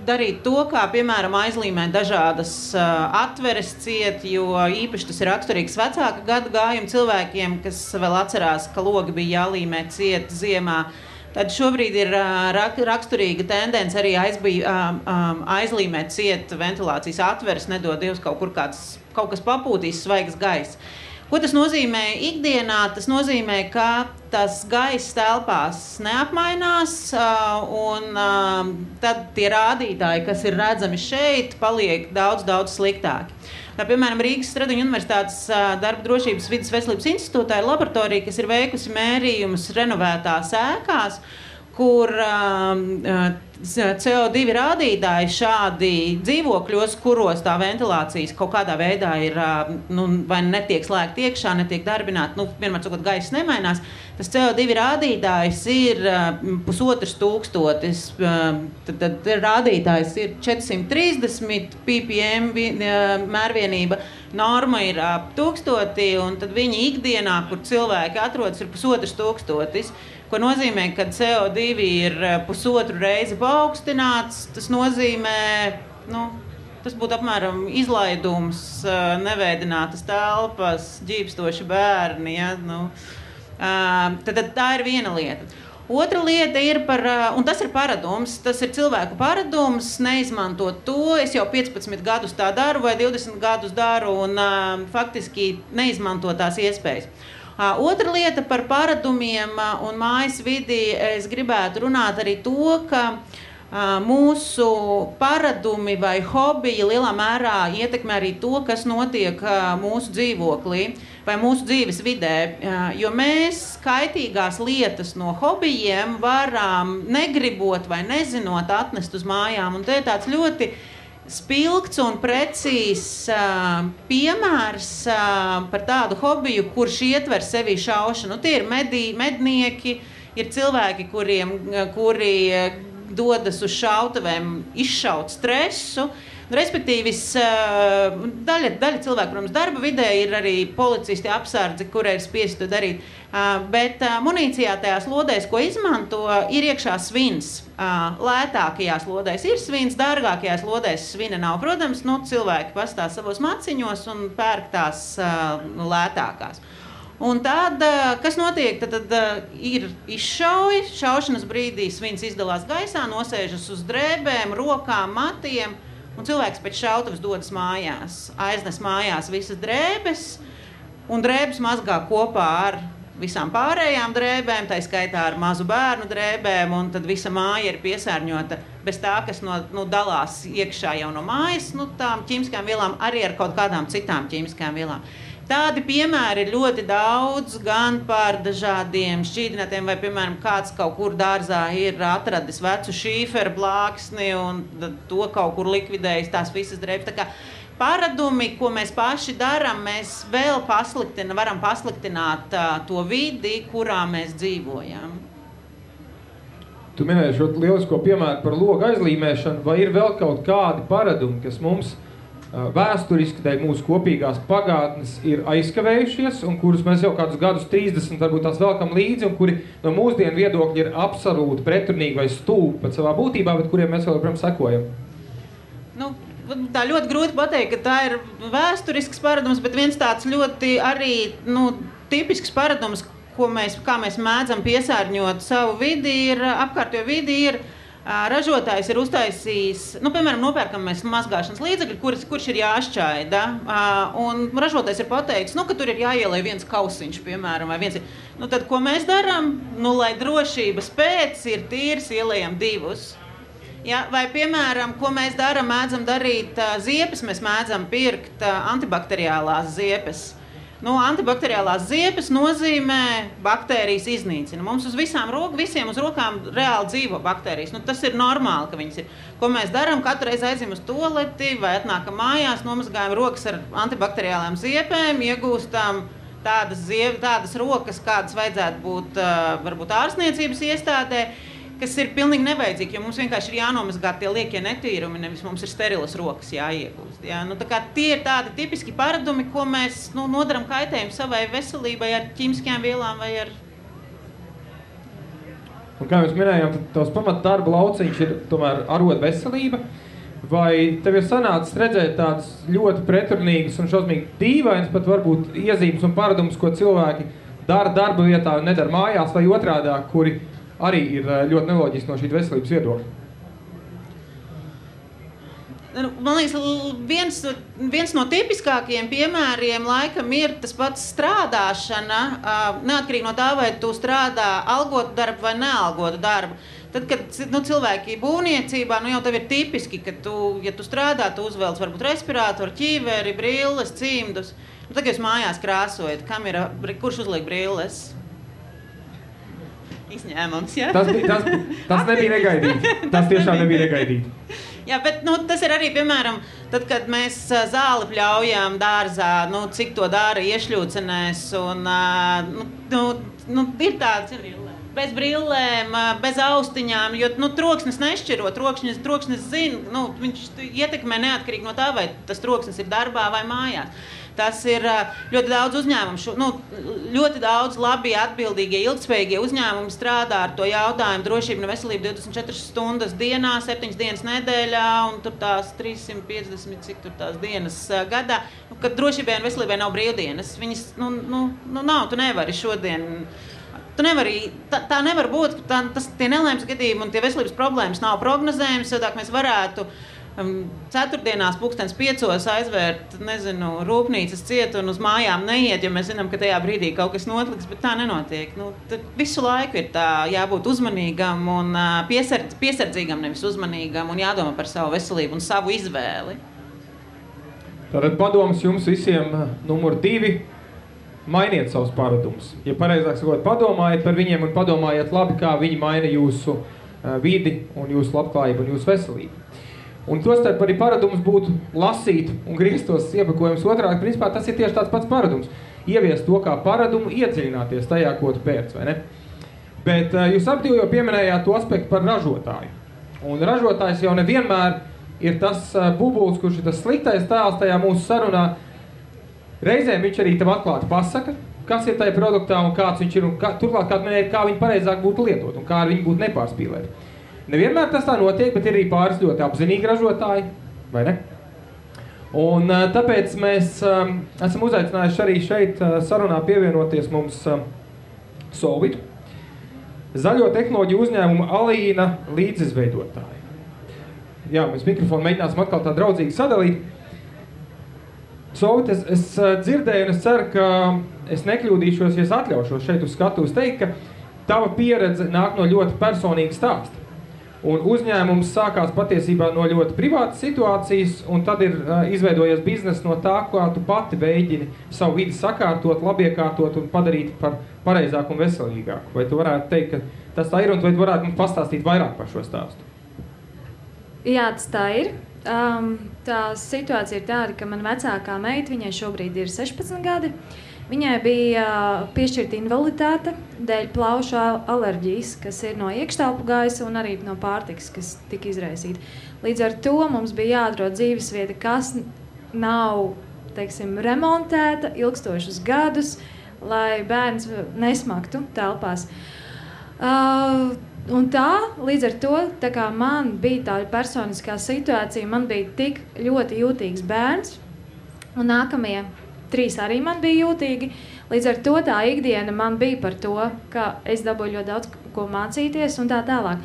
darīt to, kā, piemēram, aizlīmēt dažādas atveres ciet, jo īpaši tas ir raksturīgs vecāka gadu gājuma cilvēkiem, kas vēl atcerās, ka logi bija jālīmē ciet ziemā. Tad šobrīd ir raksturīga tendence arī aizlīmēt ciet ventilācijas atveres, nedod Dievs kaut kas papūtīs svaigs gaiss. Ko tas nozīmē ikdienā? Tas nozīmē, ka tas gaiss telpās neapmainās, un tad tie rādītāji, kas ir redzami šeit, paliek daudz sliktāki. Tā, piemēram, Rīgas Stradiņu universitātes darba drošības vides veselības institūtā ir laboratorija, kas ir veikusi mērījumus renovētās ēkās, kur CO2 rādītāji šādi dzīvokļos, kuros tā ventilācijas kaut kādā veidā ir vai netiek slēgta iekšā, netiek darbināta, vienmēr sakot, gaiss nemainās, tas CO2 rādītājs ir 1500, tad rādītājs ir 430 ppm mērvienība, norma ir 1000, un tad viņi ikdienā, kur cilvēki atrodas, ir 1500. Ko nozīmē, ka CO2 ir 1,5 reizi paaugstināts, tas nozīmē, tas būtu apmēram izlaidums, neveidinātas telpas, ģīpstoši bērni, tad tā ir viena lieta. Otra lieta ir un tas ir paradums, tas ir cilvēku paradums, neizmantot to, es jau 15 gadus tā daru vai 20 gadus daru un faktiski neizmantot tās iespējas. Otra lieta par paradumiem un mājas vidi, es gribētu runāt arī to, ka mūsu paradumi vai hobiji lielā mērā ietekmē arī to, kas notiek mūsu dzīvoklī. vai mūsu dzīves vidē, jo mēs kaitīgās lietas no hobijiem varam negribot vai nezinot atnest uz mājām. Un te ir tāds ļoti spilgts un precīzs piemērs par tādu hobiju, kurš ietver sevī šaušanu. Tie ir mednieki, ir cilvēki, kuri dodas uz šautuvēm izšaut stresu. Respektīvi, daļa cilvēku, protams, darba vidē ir arī policisti, apsardzi, kurai ir spiesti to darīt. Bet munīcijā tajās lodēs, ko izmanto, ir iekšā svins. Lētākajās lodēs ir svins, dārgākajās lodēs svina nav. Protams, cilvēki pastāv savos maciņos un pērk tās lētākās. Un tad, kas notiek, tad ir izšauja, šaušanas brīdī svins izdalās gaisā, nosēžas uz drēbēm, rokām, matiem. Un cilvēks pēc šautavas dodas mājās, aiznes mājās visas drēbes, un drēbes mazgā kopā ar visām pārējām drēbēm, tā skaitā ar mazu bērnu drēbēm, un tad visa māja ir piesārņota bez tā, kas dalās iekšā jau no mājas, tām ķīmiskām vielām, arī ar kaut kādām citām ķīmiskām vielām. Tādi piemēri ir ļoti daudz, gan par dažādiem šķīdinātiem, vai, piemēram, kāds kaut kur dārzā ir atradis vecu šīferu plāksni un to kaut kur likvidējis tās visas drēbes. Tā kā paradumi, ko mēs paši darām, mēs vēl varam pasliktināt to vidi, kurā mēs dzīvojam. Tu minēji šo lielisko piemēru par logu aizlīmēšanu, vai ir vēl kaut kādi paradumi, kas mums vēsturiski dēļ mūsu kopīgās pagātnes ir aizkavējušies un kurus mēs jau kādus gadus 30 varbūt tās velkam līdzi un kuri no mūsdienu viedokļa ir absolūti pretrunīgi vai stulbi pat savā būtībā, bet kuriem mēs vēl joprojām sekojam? Tā ļoti grūti pateikt, ka tā ir vēsturisks paradums, bet viens tāds ļoti arī tipisks paradums, kā mēs mēdzam piesārņot savu vidi, ir apkārtējo vidi, ir ražotājs ir uztaisījis, piemēram, nopērkam mēs mazgāšanas līdzekļi, kurš ir jāšķaida, un ražotājs ir pateicis, ka tur ir jāielej viens kausiņš, piemēram, vai viens ir. Tad, ko mēs darām, lai drošības pēc ir tīrs, ielējam 2. Ja, vai, piemēram, ko mēs darām, mēdzam darīt ziepes, mēs mēdzam pirkt antibakteriālās ziepes. Antibakteriālās ziepes nozīmē baktērijas iznīcina. Mums uz visiem uz rokām reāli dzīvo baktērijas. Tas ir normāli, ka viņas ir. Ko mēs darām? Katru reizi aizjām uz toaleti vai atnākam mājās, nomazgājam rokas ar antibakteriālām ziepēm, iegūstam tādas rokas, kādas vajadzētu būt varbūt ārstniecības iestādē, kas ir pilnīgi nevajadzīgi, jo mums vienkārši ir jānomazgā tie liekie netīrumi, nevis mums ir sterilas rokas jāiegūst. Ja? Tā kā tie ir tādi tipiski paradumi, ko mēs nodaram kaitējumu savai veselībai ar ķīmiskajām vielām vai ar... Un kā mēs minējām, tad tavs pamat darba lauciņš ir tomēr arot veselība. Vai tev ir sanācis redzēt tādas ļoti pretrunīgas un šausmīgi dīvainas, pat varbūt iezīmes un paradumus, ko cilvēki dara darba vietā un nedara mājās, vai otrādāk, kuri arī ir ļoti neloģiski no šī veselības viedokļa? Man liekas, viens no tipiskākajiem piemēriem laikam ir tas pats strādāšana, neatkarīgi no tā, vai tu strādā algotu darbu vai nealgotu darbu. Tad, kad cilvēki būvniecībā, jau tev ir tipiski, ka ja tu strādā, tu uzvelc varbūt respirātoru, ķīveri, brilles, cimdus. Tad, jūs mājās krāsojat, kurš uzliek brilles? Izņēmums, ja? Tas nebija negaidīti. Tas tiešām nebija negaidīti. Jā, bet tas ir arī, piemēram, tad, kad mēs zāli pļaujam dārzā, cik to dara iešļūcenēs, un ir tāds bez brillēm, bez austiņām, jo troksnis nešķiro, troksnis zina, viņš ietekmē neatkarīgi no tā, vai tas troksnis ir darbā vai mājās. Tas ir ļoti daudz uzņēmumu, ļoti daudz labi atbildīgie, ilgtspējīgie uzņēmumi strādā ar to jautājumu drošību un veselību 24 stundas dienā, 7 dienas nedēļā un tur tās 350, cik tur tās dienas gadā, kad drošībai un veselībai nav brīvdienas. Viņas, nav, tu nevari šodien, tā nevar būt, tie nelēmas gadījumi un tie veselības problēmas nav prognozējums, sadāk mēs varētu ceturtdienās 5:00 aizvērt, rūpnīcas ciet un uz mājām neiet, jo mēs zinām, ka tajā brīdī kaut kas notliks, bet tā nenotiek. Visu laiku ir tā jābūt uzmanīgam un piesardzīgam, nevis uzmanīgam un jādomā par savu veselību un savu izvēli. Tātad padoms jums visiem numur 2. mainiet savus paradumus. Ja pareizāk sakot, padomājiet par viņiem un padomājiet labi, kā viņi maina jūsu vidi un jūsu labklājību un jūsu veselību. Un tostarp arī paradums būtu lasīt un griezt tos iepakojumus otrādi. Principā tas ir tieši tāds pats paradums. Ieviest to kā paradumu, iedziļināties tajā, ko tu pērc, vai ne? Bet jūs abi jau pieminējāt to aspektu par ražotāju. Un ražotājs jau nevienmēr ir tas bubulis, kurš ir tas sliktais tēls tajā mūsu sarunā. Reizēm viņš arī tev atklāti pasaka, kas ir tajā produktā un kāds viņš ir, un turklāt kā viņi pareizāk būtu lietot un kā ar viņu būtu nepārspīlēt. Nevienmēr tas tā notiek, bet ir arī pāris ļoti apzinīgi ražotāji, vai ne? Un tāpēc mēs esam uzaicinājuši arī šeit sarunā pievienoties mums Solvitu, zaļo tehnoloģiju uzņēmumu Alīna līdzizveidotāji. Jā, mēs mikrofonu mēģināsim atkal tā draudzīgi sadalīt. Solvit, es dzirdēju un es ceru, ka es nekļūdīšos, ja es atļaušos šeit uz skatuves teikt, ka tava pieredze nāk no ļoti personīga stāsta. Un uzņēmums sākās patiesībā no ļoti privātas situācijas, un tad ir izveidojies bizness no tā, kā tu pati mēģini savu vidi sakārtot, labiekārtot un padarīt par pareizāku un veselīgāku. Vai tu varētu teikt, ka tas tā ir, un vai tu varētu mums pastāstīt vairāk par šo stāstu? Jā, tas tā ir. Tā situācija ir tāda, ka man vecākā meita, viņai šobrīd ir 16 gadi, viņai bija piešķirta invaliditāte dēļ plaušu alerģijas, kas ir no iekštelpu gaisa un arī no pārtikas, kas tika izraisīta. Līdz ar to mums bija jāatrod dzīvesvieta, kas nav, teiksim, remontēta ilgstošus gadus, lai bērns nesmaktu telpās. Un tā, līdz ar to, tā kā man bija tā personiskā situācija, man bija tik ļoti jūtīgs bērns, un nākamie 3 arī man bija jūtīgi. Līdz ar to tā ikdiena man bija par to, ka es dabūju ļoti daudz ko mācīties un tā tālāk.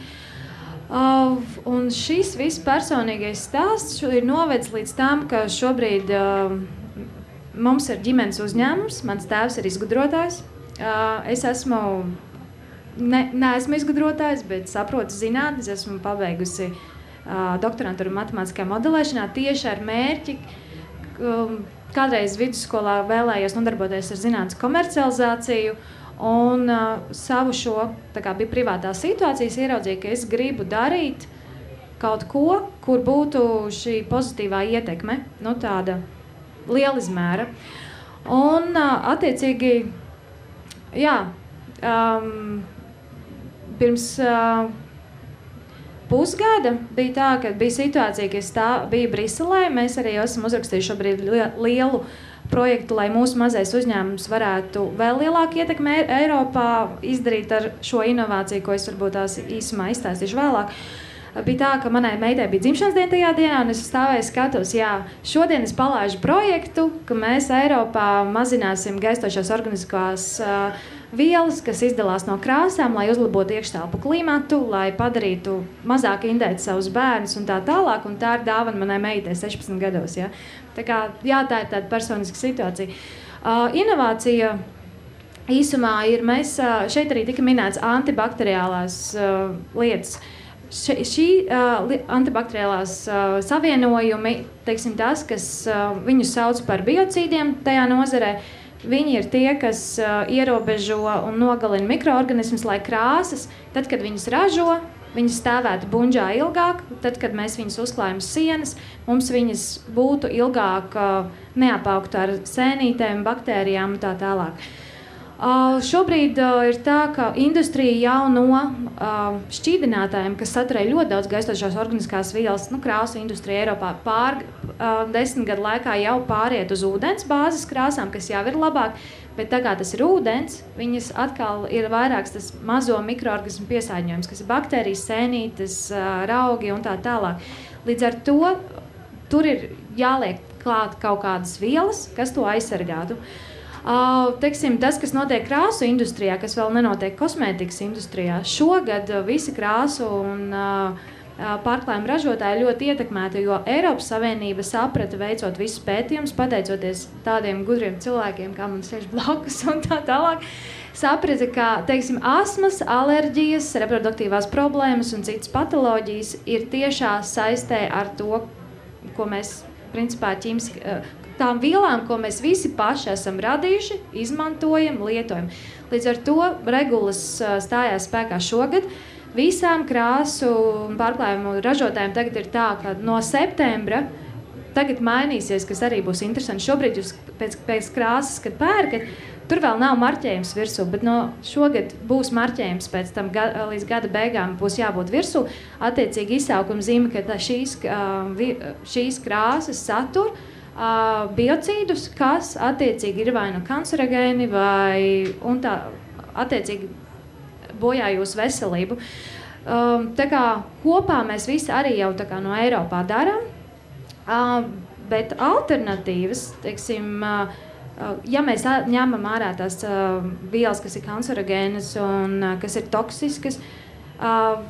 Un šis viss personīgais stāsts ir novedis līdz tam, ka šobrīd mums ir ģimenes uzņēmums, mans tēvs ir izgudrotājs. Es esmu neesmu izgudrotājs, bet saprotu zinātnes, esmu pabeigusi doktorantūru matemātiskajā modelēšanā tieši ar mērķi. Kādreiz vidusskolā vēlējos nodarboties ar zinātnes komercializāciju un savu šo, tā kā bija privātā situācijas, ieraudzīju, ka es gribu darīt kaut ko, kur būtu šī pozitīvā ietekme, tāda liela izmēra. Un attiecīgi, jā, pirms pusgada bija tā, ka bija situācija, ka es biju Briselē. Mēs arī esam uzrakstījuši šobrīd lielu projektu, lai mūsu mazais uzņēmums varētu vēl lielāku ietekmi Eiropā izdarīt ar šo inovāciju, ko es varbūt tās īsumā izstāstīšu vēlāk. Bija tā, ka manai meitai bija dzimšanas diena tajā dienā, un es stāvēju skatos, jā, šodien es palaižu projektu, ka mēs Eiropā mazināsim gaistošās organiskās vielas, kas izdalās no krāsām, lai uzlabotu iekštelpu klimatu, lai padarītu mazāk indēt savus bērnus un tā tālāk, un tā ir dāvana manai meitai 16 gados, jā. Tā kā, jā, tā ir tāda personiska situācija. Inovācija īsumā ir, mēs šeit arī tika minēts antibakteriālās lietas. Šī antibakteriālās savienojumi, teiksim tas, kas viņus sauc par biocīdiem tajā nozarē, viņi ir tie, kas ierobežo un nogalina mikroorganismus, lai krāsas, tad, kad viņas ražo, viņas stāvētu buņģā ilgāk, tad, kad mēs viņas uzklājam sienas, mums viņas būtu ilgāk neapaugtu ar sēnītēm, baktērijām un tā tālāk. Šobrīd ir tā, ka industrija jau no šķīdinātājiem, kas saturēja ļoti daudz gaistošās organiskās vielas, krāsu industrija Eiropā 10 gadu laikā jau pāriet uz ūdens bāzes krāsām, kas jau ir labāk, bet tā kā tas ir ūdens, viņas atkal ir vairāks tas mazo mikroorganismu piesārņojums, kas ir baktērijas, sēnītes, raugi un tā tālāk. Līdz ar to tur ir jāliek klāt kaut kādas vielas, kas to aizsargātu. Teiksim, tas, kas notiek krāsu industrijā, kas vēl nenotiek kosmētikas industrijā, šogad visi krāsu un pārklājuma ražotāji ļoti ietekmēti, jo Eiropas Savienība saprata, veicot visus pētījumus, pateicoties tādiem gudriem cilvēkiem, kā man sēž blakus un tā tālāk, saprata, ka, teiksim, astmas, alerģijas, reproduktīvās problēmas un citas patoloģijas ir tiešā saistē ar to, ko mēs principā tām vielām, ko mēs visi paši esam radījuši, izmantojam, lietojam. Līdz ar to regulas stājās spēkā šogad. Visām krāsu pārklājumu ražotājiem tagad ir tā, ka no septembra tagad mainīsies, kas arī būs interesanti. Šobrīd jūs pēc krāsas, kad pērkat, tur vēl nav marķējums virsū, bet no šogad būs marķējums pēc tam līdz gada beigām būs jābūt virsū. Attiecīgi izsaukuma zīme, ka šīs krāsas satur biocīdus, kas attiecīgi ir vai nu kancerogēni, un tā attiecīgi bojā jūsu veselību. Tā kā kopā mēs visi arī jau tā kā no Eiropā darām, bet alternatīvas, teiksim, ja mēs ņemam ārā tās vielas, kas ir kancerogēnas un kas ir toksiskas,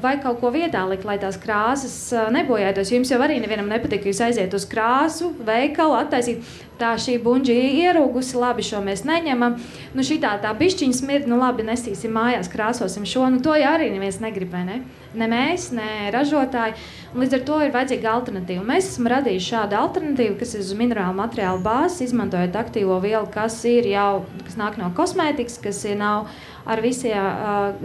vai kaut ko vietā likt, lai tās krāsas nebojātos. Jums jau arī nevienam nepatīk, ka jūs aiziet uz krāsu, veikalu, attaisīt. Tā šī buņģi ierūgusi, labi, šo mēs neņemam. Nu šitā tā bišķiņa smird, nu labi, nesīsim mājās, krāsosim šo. Nu to jau arī neviens negrib, vai ne? Ne mēs, ne ražotāji. Un līdz ar to ir vajadzīga alternatīva. Mēs esam radījuši šādu alternatīvu, kas ir uz minerālu materiālu bāzes, izmantojot aktīvo vielu, kas nāk no kosmētikas, kas nav ar visiem,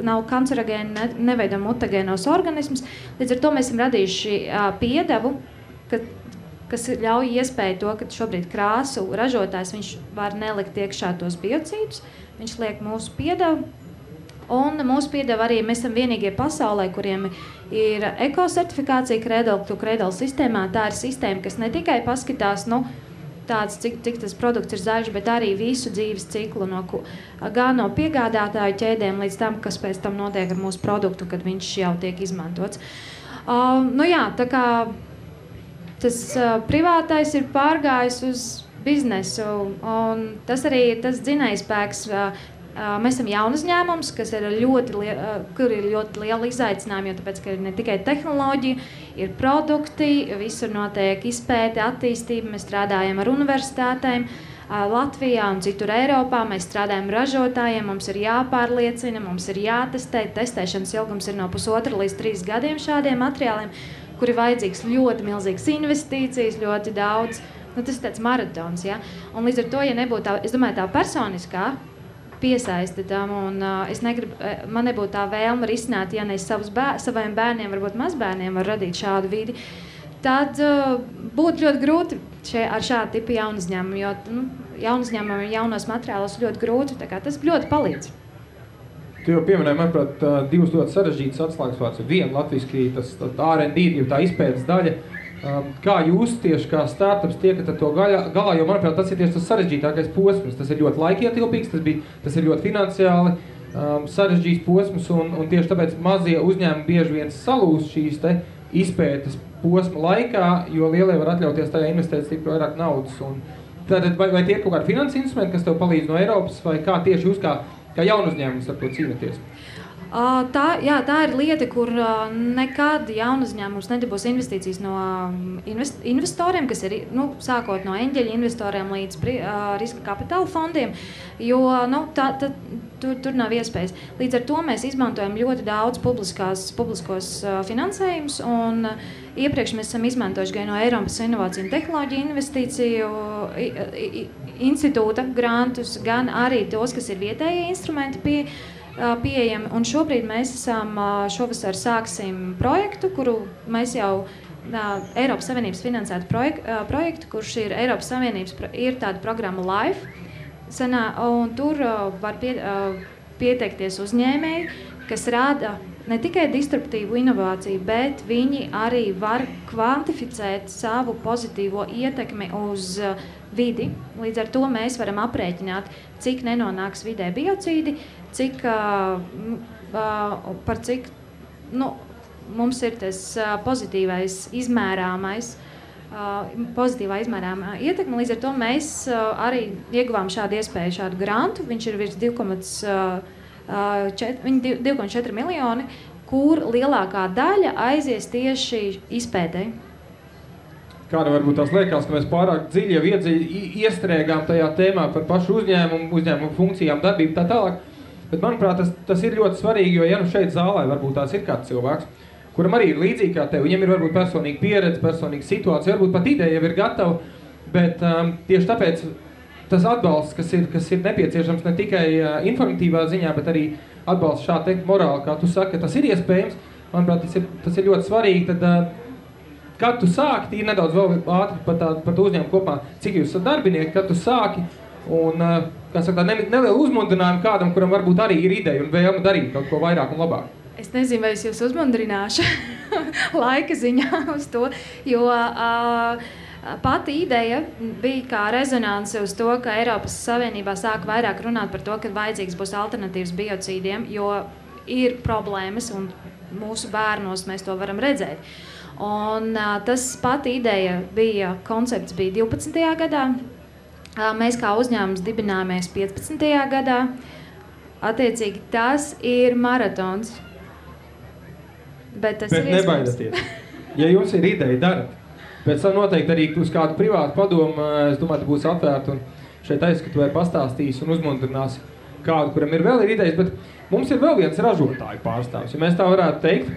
nav kancerogēni, neveido mutagēnos organismus. Līdz ar to mēs esam radījuši piedevu, kas ļauj iespēju to, ka šobrīd krāsu ražotājs viņš var nelikt iekšā tos biocīdus, viņš liek mūsu piedevu. Un mūsu piedeva arī, mēs esam vienīgie pasaulē, kuriem ir ekosertifikācija Cradle to Cradle sistēmā. Tā ir sistēma, kas ne tikai paskatās, tāds, cik tas produkts ir zaļš, bet arī visu dzīves ciklu, gan no piegādātāju ķēdēm līdz tam, kas pēc tam notiek ar mūsu produktu, kad viņš jau tiek izmantots. Tā kā tas privātais ir pārgājis uz biznesu, un tas arī ir tas dzinējspēks. Mēs esam jauna uzņēmums, kur ir ļoti liela izaicinājuma, jo tāpēc, ka ir ne tikai tehnoloģija, ir produkti, visur notiek izpēte, attīstība, mēs strādājam ar universitātēm Latvijā un citur Eiropā, mēs strādājam ražotājiem, mums ir jāpārliecina, mums ir jātestē, testēšanas ilgums ir no 1,5 līdz 3 gadiem šādiem materiāliem, kur ir vajadzīgs ļoti milzīgas investīcijas, ļoti daudz, tas ir tāds maratons, ja? Un līdz ar to, ja nebūtu tā, es domāju, tā personiskā piesaisti tam, un man nebūtu tā vēlme risināt, ja ne saviem bērniem, varbūt mazbērniem var radīt šādu vidi, tad būtu ļoti grūti ar šādu tipu jaunu uzņēmumu, jo jaunu uzņēmumu jaunos materiālos ļoti grūti, tā kā tas ļoti palīdz. Tu jau pieminēji, manuprāt, divas ļoti sarežģītas atslēgas vārds. Viena latviski, tas R&D, tā izpētes daļa. Kā jūs tieši kā startups tiekat ar to galā, jo, manuprāt, tas ir tieši tas sarežģītākais posms. Tas ir ļoti laikietilpīgs, tas ir ļoti finansiāli sarežģīts posms, un tieši tāpēc mazie uzņēmumi bieži vien salūst šīs te izpētes posma laikā, jo lielie var atļauties tajā investēt stipri vairāk naudas. Tātad, vai tie ir kaut kādi finanses instrumenti, kas tev palīdz no Eiropas, vai kā tieši jūs kā jaunu uzņēmumus ar to cīnaties? Tā ir lieta, kur nekad jaunu uzņēmums nedabūs investīcijas no investoriem, kas ir sākot no eņģeļu investoriem līdz riska kapitāla fondiem, jo tur nav iespējas. Līdz ar to mēs izmantojam ļoti daudz publiskos finansējumus, un iepriekš mēs esam izmantojuši gan no Eiropas Inovāciju un Tehnoloģiju investīciju institūta grantus, gan arī tos, kas ir vietējie instrumenti pieejami. Un šobrīd mēs šovasar sāksim projektu, kuru mēs jau Eiropas Savienības finansētu projektu, kurš ir Eiropas Savienības, ir tāda programma LIFE, un tur var pieteikties uzņēmēji, kas rada ne tikai disruptīvu inovāciju, bet viņi arī var kvantificēt savu pozitīvo ietekmi uz vidi. Līdz ar to mēs varam aprēķināt, cik nenonāks vidē biocīdi, par cik mums ir tas pozitīvais izmērāmais, pozitīvā izmērāmā ietekme. Līdz ar to mēs arī ieguvām šādu iespēju, šādu grantu. Viņš ir virs 2,4 miljoni, kur lielākā daļa aizies tieši izpētē. Kāda varbūt tās liekas, ka mēs pārāk dziļi jau iestrēgām tajā tēmā par pašu uzņēmumu funkcijām, darbību tā tālāk. Bet, manuprāt, tas ir ļoti svarīgi, jo ja šeit zālē varbūt tās ir kāds cilvēks, kuram arī ir līdzīgi kā tev. Viņiem ir varbūt personīga pieredze, personīga situācija, varbūt pat ideja jau ir gatava, bet tieši tāpēc tas atbalsts, kas ir nepieciešams ne tikai informatīvā ziņā, bet arī atbalsts šādi morāli, kā tu saki, ka tas ir iespējams. Manuprāt, tas ir ļoti svarīgi. Tad, kad tu sāki, ir nedaudz vēl ātri par to uzņēmumu kopā, cik jūs esat darbinieki, kad tu sāki un, kā saka, nelielu uzmundrinājumu kādam, kuram varbūt arī ir ideja un vēlme darīt kaut ko vairāk un labāk. Es nezinu, vai es jūs uzmundrināšu laika ziņā uz to, jo pati ideja bija kā rezonanse uz to, ka Eiropas Savienībā sāk vairāk runāt par to, ka vajadzīgs būs alternatīvas biocīdiem, jo ir problēmas un mūsu bērnos mēs to varam redzēt. Un tas pati ideja bija, koncepts bija 12. gadā, mēs kā uzņēmums dibināmies 15. gadā, attiecīgi tas ir maratons. Bet nebaidieties. Ja jums ir ideja, darat. Pēc tam noteikti arī uz kādu privātu padomu, es domāju, būs atvērta un šeit aizskatu pastāstīs un uzmundrinās kādu, kuram ir vēl ir idejas, bet mums ir vēl viens ražotāju pārstāvs, ja mēs tā varētu teikt.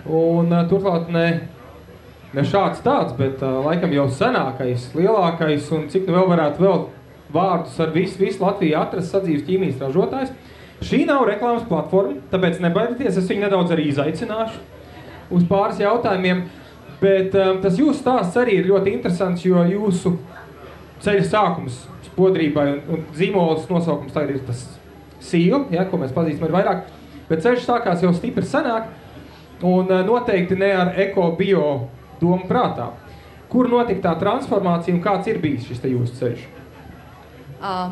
Un turklāt ne šāds tāds, bet laikam jau senākais, lielākais un cik nu vēl varētu vēl vārdus ar visu Latviju atrast sadzīves ķīmijas ražotājs. Šī nav reklāmas platforma, tāpēc nebaidieties, es viņu nedaudz arī izaicināšu uz pāris jautājumiem. Bet tas jūsu stāsts arī ir ļoti interesants, jo jūsu ceļa sākums spodrībai un zīmolas nosaukums tagad ir tas Seal, ja, ko mēs pazīstam ar vairāk, bet ceļš sākās jau stipri senāk un noteikti ne ar eko-bio domu prātā. Kur notika tā transformācija un kāds ir bijis šis te jūsu ceļš?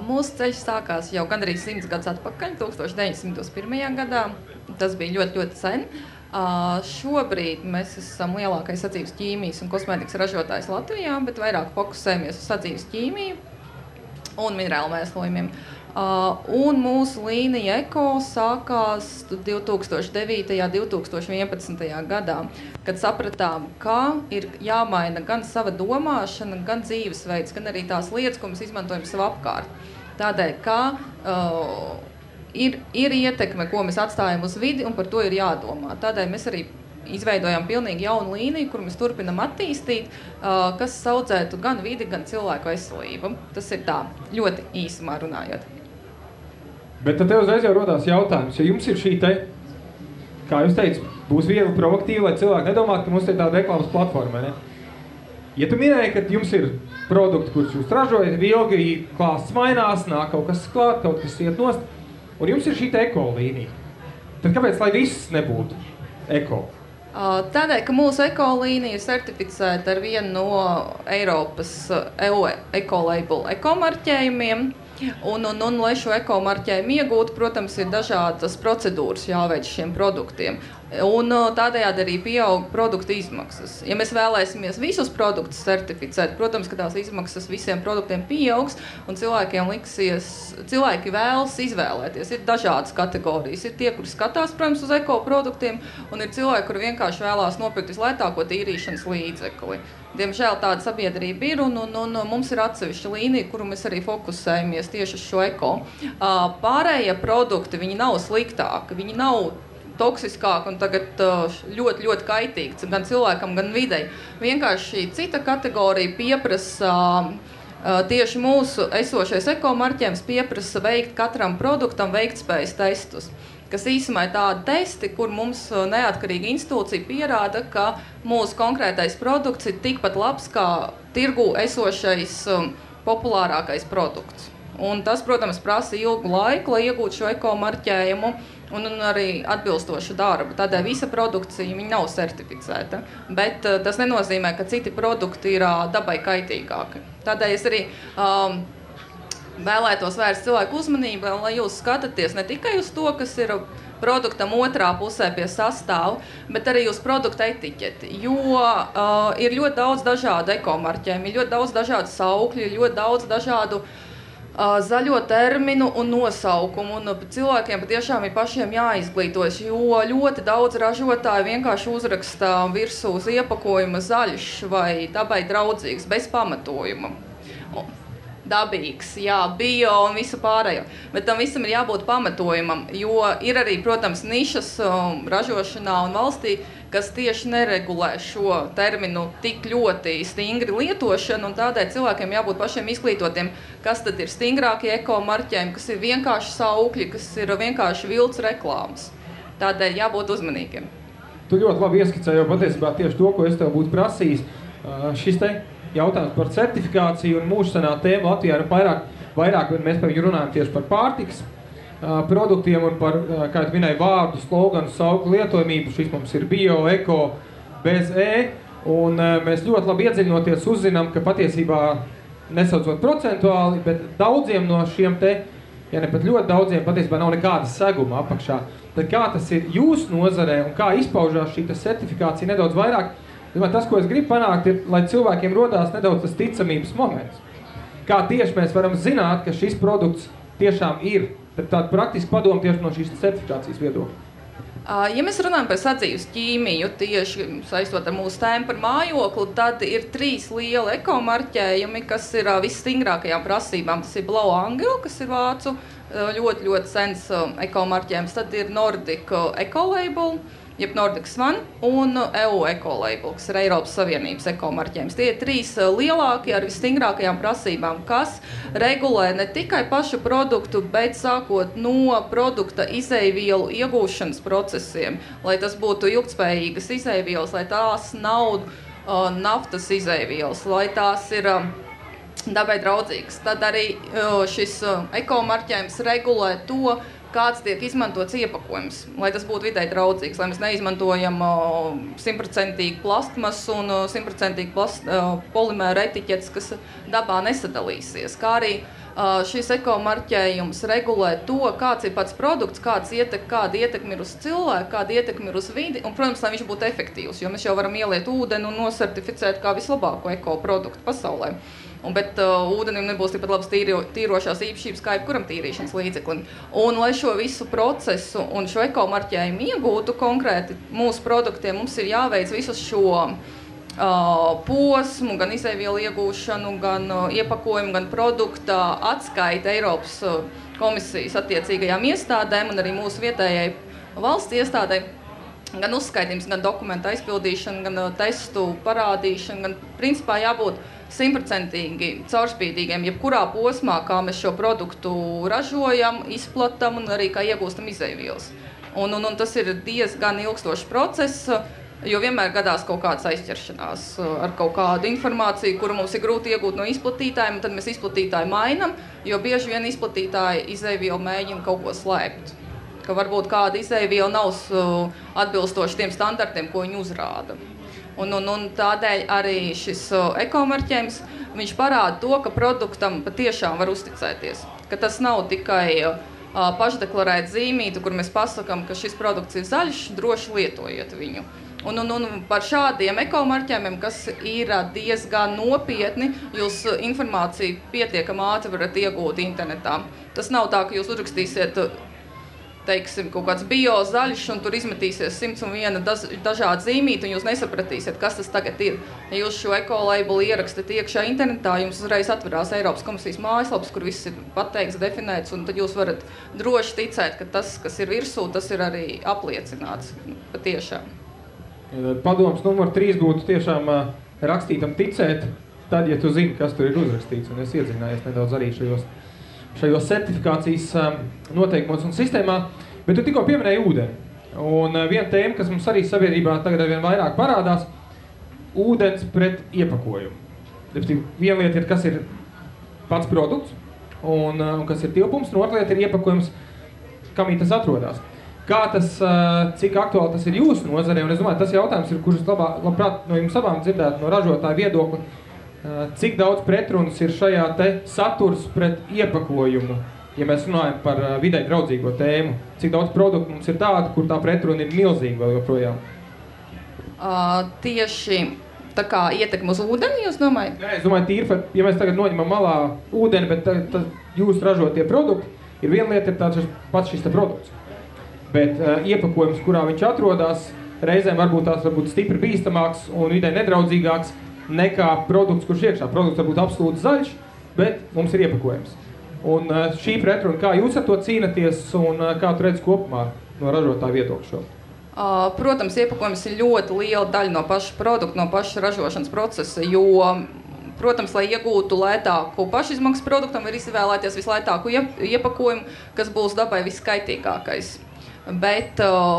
Mūsu ceļš sākās jau gandrīz 100 gadus atpakaļ, 1901. gadā. Tas bija ļoti, ļoti sen. Šobrīd mēs esam lielākais sadzīves ķīmijas un kosmētikas ražotājs Latvijā, bet vairāk fokusējamies uz sadzīves ķīmiju un minerālu mēslojumiem. Un mūsu līnija Eko sākās 2009. 2011. gadā, kad sapratām, ka ir jāmaina gan sava domāšana, gan dzīvesveids, gan arī tās lietas, ko mēs izmantojam savu apkārt. Tādēļ, ka ir ietekme, ko mēs atstājam uz vidi, un par to ir jādomā. Tādēļ mēs arī izveidojām pilnīgi jaunu līniju, kur mēs turpinam attīstīt, kas saudzētu gan vidi, gan cilvēku veselību. Tas ir tā, ļoti īsumā runājot. Bet tad tev uzreiz jau rodās jautājums, ja jums ir šī te, kā jūs teicat, būs viegli provokatīvi, lai cilvēki nedomātu, ka mums ir tāda reklāmas platforma, ne? Ja tu minēji, ka jums ir produkti, kurus jūs ražojat, ilgi klāsts mainās, nāk kaut kas klāt, kaut kas iet nost, un jums ir šī eko līnija. Tad kāpēc, lai viss nebūtu eko? Tādēļ, ka mūsu eko līnija ir certificēta ar vienu no Eiropas EU ekolabel ekomarķējumiem. Un, lai šo ekomarķējumu iegūtu, protams, ir dažādas procedūras jāveic šiem produktiem. Un tādējādi arī pieaug produktu izmaksas. Ja mēs vēlēsimies visus produktus certificēt, protams, ka tās izmaksas visiem produktiem pieaugs, un cilvēki vēlas izvēlēties. Ir dažādas kategorijas. Ir tie, kuri skatās, protams, uz ekoproduktiem, un ir cilvēki, kuri vienkārši vēlās nopirkt vislētāko tīrīšanas līdzekli. Diemžēl tāda sabiedrība ir, un mums ir atsevišķa līnija, kuru mēs arī fokusējamies tieši uz šo eko. Pārējie produkti, viņi nav sliktāki, viņi nav toksiskāki un tagad ļoti, ļoti kaitīgs gan cilvēkam, gan videi. Vienkārši cita kategorija pieprasa, tieši mūsu esošais ekomarķējums pieprasa veikt katram produktam veiktspējas testus, kas īsumā ir tādi testi, kur mums neatkarīga institūcija pierāda, ka mūsu konkrētais produkts ir tikpat labs kā tirgū esošais populārākais produkts. Un tas, protams, prasa ilgu laiku, lai iegūtu šo ekomarķējumu un arī atbilstošu darbu. Tādēļ visa produkcija viņa nav certificēta, bet tas nenozīmē, ka citi produkti ir dabai kaitīgāki. Tādēļ es arī vēlētos vērst cilvēku uzmanību, lai jūs skatāties ne tikai uz to, kas ir produktam otrā pusē pie sastāvu, bet arī uz produkta etiķeti, jo ir ļoti daudz dažādu ekomarķējumu, ir ļoti daudz dažādu saukļu, ir ļoti daudz dažādu zaļo terminu un nosaukumu, un cilvēkiem patiešām ir pašiem jāizglītojas, jo ļoti daudz ražotāju vienkārši uzraksta virsū uz iepakojuma zaļš vai dabai draudzīgs, bez pamatojuma. Dabīgs, jā, bio un visu pārējo. Bet tam visam ir jābūt pamatojumam, jo ir arī, protams, nišas ražošanā un valstī, kas tieši neregulē šo terminu tik ļoti stingri lietošanu, un tādēļ cilvēkiem jābūt pašiem izglītotiem, kas tad ir stingrākie ekomarķējumi, kas ir vienkārši saukļi, kas ir vienkārši vilts reklāmas. Tādēļ jābūt uzmanīgiem. Tu ļoti labi ieskicēji jau patiesībā tieši to, ko es tev būtu prasījis. Šis te jautājums par certifikāciju un mūžsanā tēma Latvijā ir vairāk mēs runājam tieši par pārtikas produktiem un par, kā tu minēji, vārdu, sloganu, sauklu lietojamību. Šis mums ir bio, eko, bez un mēs ļoti labi iedziļinoties uzzinām, ka patiesībā, nesaucot procentuāli, bet daudziem no šiem te, ja ne pat ļoti daudziem, patiesībā nav nekāda seguma apakšā. Tad kā tas ir jūsu nozarē un kā izpaužās šī certifikācija nedaudz vairāk? Tas, ko es gribu panākt, ir, lai cilvēkiem rodās nedaudz tas ticamības moments. Kā tieši mēs varam zināt, ka šis produkts tiešām ir. Tad tāda praktiska padoma tieši no šīs certifikācijas viedokļa. Ja mēs runājam par sadzīves ķīmiju, tieši saistot ar mūsu tēmu par mājokli, tad ir 3 lieli ekomarķējumi, kas ir visstingrākajām prasībām. Tas ir Blau Angel, kas ir vācu ļoti sens ekomarķējums. Tad ir Nordic Ecolabel, jeb Nordic Swan, un EU Ecolabel, kas ir Eiropas Savienības ekomarķējums. Tie ir 3 lielākie ar visstingrākajām prasībām, kas regulē ne tikai pašu produktu, bet sākot no produkta izejvielu iegūšanas procesiem, lai tas būtu ilgtspējīgas izejvielas, lai tās nav naftas izejvielas, lai tās ir dabai draudzīgas. Tad arī šis ekomarķējums regulē to, kāds tiek izmantots iepakojums, lai tas būtu videi draudzīgs, lai mēs neizmantojam 100% plastmasu un 100% polimēra etiķetes, kas dabā nesadalīsies. Kā arī šis ekomarķējums regulē to, kāds ir pats produkts, kāda ietekme ir uz cilvēku, kāda ietekme ir uz vidi, un, protams, lai viņš būtu efektīvs, jo mēs jau varam ieliet ūdeni un nosertificēt kā vislabāko ekoproduktu pasaulē. Bet ūdenim nebūs tikpat labas tīrošās īpašības kā jebkuram tīrīšanas līdzeklim. Un, lai šo visu procesu un šo ekomarķējumu iegūtu konkrēti mūsu produktiem, mums ir jāveic visu šo posmu, gan izejvielu iegūšanu, gan iepakojumu, gan produkta atskaita Eiropas komisijas attiecīgajām iestādēm un arī mūsu vietējai valsts iestādē. Gan uzskaitījums, gan dokumenta aizpildīšana, gan testu parādīšana, gan principā jābūt 100% caurspīdīgiem, jebkurā posmā, kā mēs šo produktu ražojam, izplatam un arī kā iegūstam izejvielas. Un tas ir diezgan ilgstošs process, jo vienmēr gadās kaut kādas aizķeršanās ar kaut kādu informāciju, kuru mums ir grūti iegūt no izplatītājiem, un tad mēs izplatītāju mainam, jo bieži vien izplatītāji izejvielu mēģina kaut ko slēpt. Ka varbūt kāda izejviela nav atbilstoši tiem standartiem, ko viņi uzrāda. Un tādēļ arī šis ekomarķējums, viņš parāda to, ka produktam patiešām var uzticēties. Ka tas nav tikai pašdeklarēt zīmītu, kur mēs pasakam, ka šis produkts ir zaļš, droši lietojiet viņu. Un par šādiem ekomarķējumiem, kas ir diezgan nopietni, jūs informāciju pietiekami ātri varat iegūt internetā. Tas nav tā, ka jūs uzrakstīsiet, teiksim, kaut kāds bio zaļš, un tur izmetīsies 101 dažādi zīmīti, un jūs nesapratīsiet, kas tas tagad ir. Ja jūs šo ekolabelu ierakstat iekšā internetā, jums uzreiz atverās Eiropas komisijas mājaslaps, kur viss ir pateikts, definēts, un tad jūs varat droši ticēt, ka tas, kas ir virsū, tas ir arī apliecināts patiešām. Padoms numur 3 būtu tiešām rakstītam ticēt, tad, ja tu zini, kas tur ir uzrakstīts, un es iedziļinājies nedaudz arī šajos certifikācijas noteikumos un sistēmā, bet tu tikko pieminēji ūdeni. Un viena tēma, kas mums arī sabiedrībā tagad arvien vairāk parādās, ūdens pret iepakojumu. Viena lieta ir, kas ir pats produkts, un kas ir tilpums, un otra lieta ir iepakojums, kamī tas atrodas. Kā tas, cik aktuāli tas ir jūsu nozarē, un es domāju, tas jautājums ir, kurus labprāt no jums abām dzirdētu no ražotāja viedokļa, cik daudz pretrunas ir šajā te saturs pret iepakojumu, ja mēs runājam par videi draudzīgo tēmu. Cik daudz produktu mums ir tāda, kur tā pretruna ir milzīga vēl joprojām? Tieši tā kā ietekme uz ūdeni, jūs domājat? Nē, es domāju, tīri, ja mēs tagad noņemam malā ūdeni, bet jūs ražotie produkti, ir viena lieta, ir tāds pats šis te produkts. Bet iepakojums, kurā viņš atrodas, reizēm varbūt stipri bīstamāks un videi nedraudzīgāks, nekā produkts, kurš iekšā. Produkts var būt absolūti zaļš, bet mums ir iepakojums. Un šī pretruna, kā jūs ar to cīnaties un kā tu redz kopumā no ražotāja viedokļa šo? Protams, iepakojums ir ļoti liela daļa no paša produkta, no paša ražošanas procesa, jo, protams, lai iegūtu lētāku pašizmaksas produktam, ir izvēlēties vislētāku iepakojumu, kas būs dabai viskaitīgākais. Bet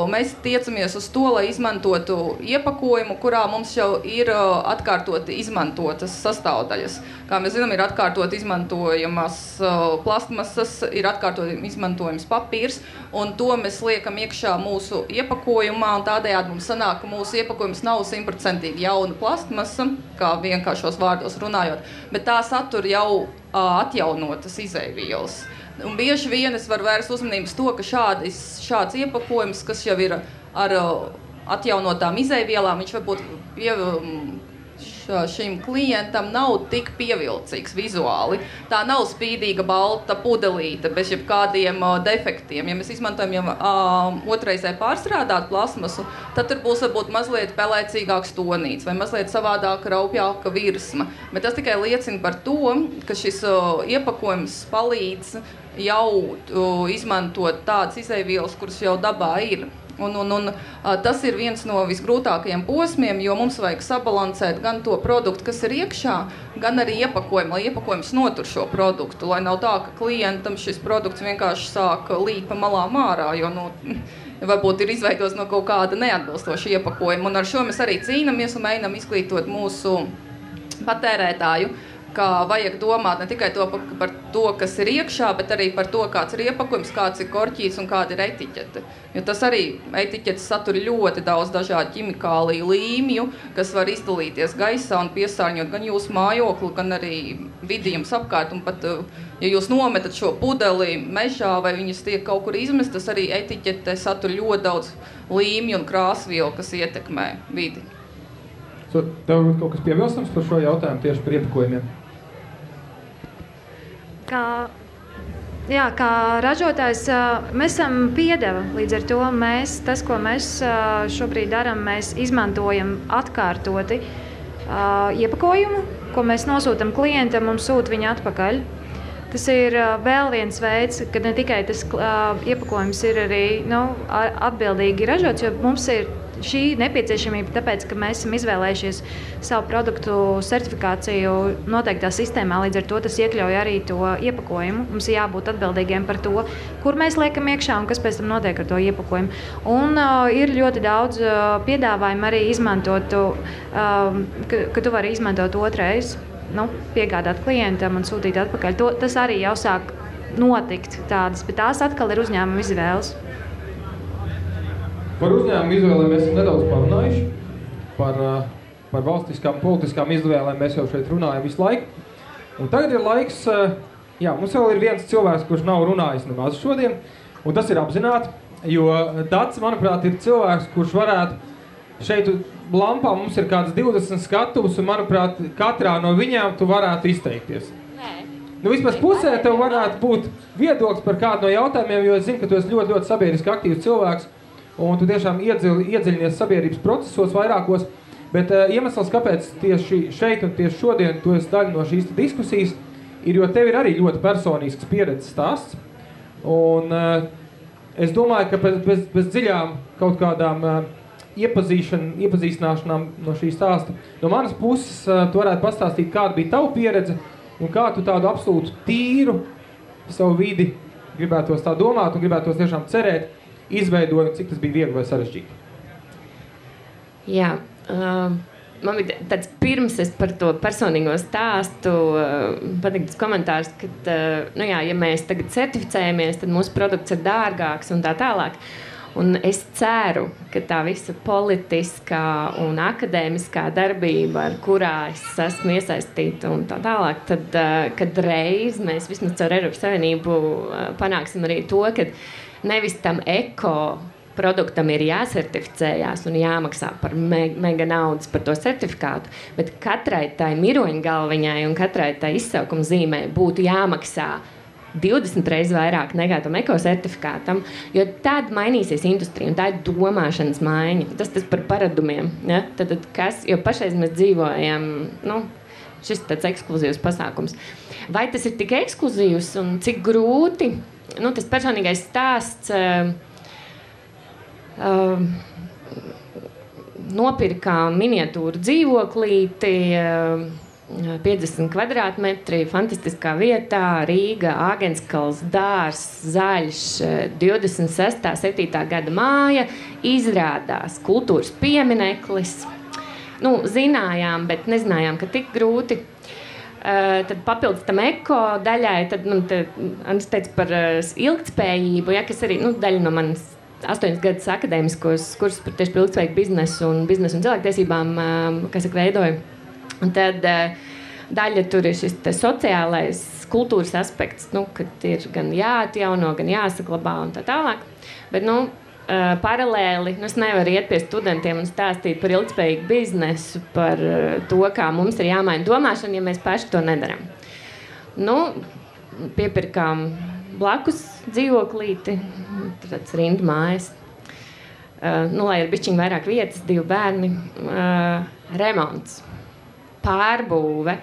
mēs tiecamies uz to, lai izmantotu iepakojumu, kurā mums jau ir atkārtoti izmantotas sastāvdaļas. Kā mēs zinām, ir atkārtot izmantojamas plastmasas, ir atkārtot izmantojams papīrs, un to mēs liekam iekšā mūsu iepakojumā, un tādējādi mums sanāk, ka mūsu iepakojums nav 100% jauna plastmasa, kā vienkāršos vārdos runājot, bet tā satur jau atjaunotas izeivielas. Un bieži vien es varu vērst uzmanības to, ka šāds iepakojums, kas jau ir ar atjaunotām izeivielām, viņš varbūt šim klientam nav tik pievilcīgs vizuāli. Tā nav spīdīga balta pudelīte bez jebkādiem defektiem. Ja mēs izmantojam jau otrreizē pārstrādāt plasmasu, tad tur būs varbūt mazliet pelēcīgāks tonīts vai mazliet savādāk raupjāka virsma. Bet tas tikai liecina par to, ka šis iepakojums palīdz jau izmantot tādas izeivielas, kuras jau dabā ir. Un tas ir viens no visgrūtākajiem posmiem, jo mums vajag sabalansēt gan to produktu, kas ir iekšā, gan arī iepakojumu, lai iepakojums notur šo produktu, lai nav tā, ka klientam šis produkts vienkārši sāk līt pa malām ārā, jo varbūt ir izveidos no kaut kāda neatbilstoša iepakojuma. Un ar šo mēs arī cīnamies un mēģinām izglītot mūsu patērētāju, ka vajag domāt ne tikai par to, kas ir iekšā, bet arī par to, kāds ir iepakojums, kāds ir korķīts un kāda ir etiķete. Jo tas arī etiķetes satur ļoti daudz dažādu ķimikāliju līmju, kas var izdalīties gaisā un piesārņot gan jūsu mājokli, gan arī vidi jums apkārt. Un pat, ja jūs nometat šo pudeli mežā vai viņas tiek kaut kur izmestas, arī etiķete satur ļoti daudz līmju un krāsvielu, kas ietekmē vidi. Tev ir kaut kas piebilstams par šo jautājumu tieši par iepakojumiem? Kā ražotājs mēs esam piedeva, līdz ar to tas, ko mēs šobrīd darām, mēs izmantojam atkārtoti iepakojumu, ko mēs nosūtam klientam un sūta viņu atpakaļ. Tas ir vēl viens veids, ka ne tikai tas iepakojums ir arī atbildīgi ražots, jo mums ir šī nepieciešamība, tāpēc, ka mēs esam izvēlējušies savu produktu certifikāciju noteiktā sistēmā, līdz ar to tas iekļauj arī to iepakojumu. Mums ir jābūt atbildīgiem par to, kur mēs liekam iekšā un kas pēc tam notiek ar to iepakojumu. Un ir ļoti daudz piedāvājumu arī izmantot, ka tu vari izmantot otrais, piegādāt klientam un sūtīt atpakaļ. Tas arī jau sāk notikt tādas, bet tās atkal ir uzņēmuma izvēles. Par uzņēmumu izvēlēm mēs esam nedaudz parunājuši. Par valstiskām, politiskām izvēlēm mēs jau šeit runājam visu laiku. Un tagad ir laiks, mums vēl ir viens cilvēks, kurš nav runājis nemaz šodien, un tas ir apzināti, jo Dats, manuprāt, ir cilvēks, kurš varētu šeit lampā mums ir kāds 20 skatuvus, un, manuprāt, katrā no viņām tu varētu izteikties. Vismaz pusē tev varētu būt viedoklis par kādu no jautājumiem, jo es zinu, ka tu esi ļoti, ļoti sabiedriski aktīvs cilvēks, un tu tiešām iedziļinies sabiedrības procesos vairākos, bet iemesls, kāpēc tieši šeit un tieši šodien tu esi daļa no šīs diskusijas, ir, jo tev ir arī ļoti personisks pieredzes stāsts, un es domāju, ka bez dziļām kaut kādām iepazīstināšanām no šī stāsta, no manas puses tu varētu pastāstīt, kāda bija tava pieredze, un kā tu tādu absolūtu tīru savu vidi gribētos tā domāt un gribētos tiešām cerēt, izveidoju, cik tas bija viegli vai sarežģīti? Jā, man bija tāds pirms es par to personīgo stāstu patīktas komentārs, ka, ja mēs tagad certificējamies, tad mūsu produkts ir dārgāks un tā tālāk. Un es ceru, ka tā visa politiskā un akadēmiskā darbība, ar kurā es esmu iesaistīta un tā tālāk, tad, kad reiz mēs vismaz caur Eiropas Savienību panāksim arī to, ka nevis tam eko produktam ir jāsertificējās un jāmaksā par mega naudas par to certifikātu, bet katrai tai miroņgalviņai un katrai tai izsaukuma zīmē būtu jāmaksā 20 reizes vairāk nekā tam ekosertifikātam, jo tad mainīsies industrija un tā ir domāšanas maiņa. Tas par paradumiem. Ja? Tad jo pašreiz mēs dzīvojam, šis tāds ekskluzīvs pasākums. Vai tas ir tik ekskluzīvs un cik grūti? Tas personīgais stāsts, Nopirkām miniatūru dzīvoklīti, 50 kvadrātmetri, fantastiskā vietā, Rīga, Āgenskals, dārs, zaļš, 26. 7. gada māja, izrādās kultūras piemineklis. Nu, zinājām, bet nezinājām, ka tik grūti. Tad papildus tam eko daļai, tad man Andris teica par ilgtspējību, ja, kas arī daļa no manas 8 gadus akadēmiskos kursus par tieši par ilgtspējīgu biznesu un cilvēktiesībām, kas veidoju. Un tad daļa tur ir šis sociālais kultūras aspekts, kad ir gan jāatjauno, gan jāsaglabā un tā tālāk. Bet, paralēli, es nevaru iet pie studentiem un stāstīt par ilgtspējīgu biznesu, par to, kā mums ir jāmaina domāšana, ja mēs paši to nedaram. Piepirkām blakus dzīvoklīti, tāds rindu mājas, lai ir bišķiņ vairāk vietas, 2 bērni, remonts, pārbūve.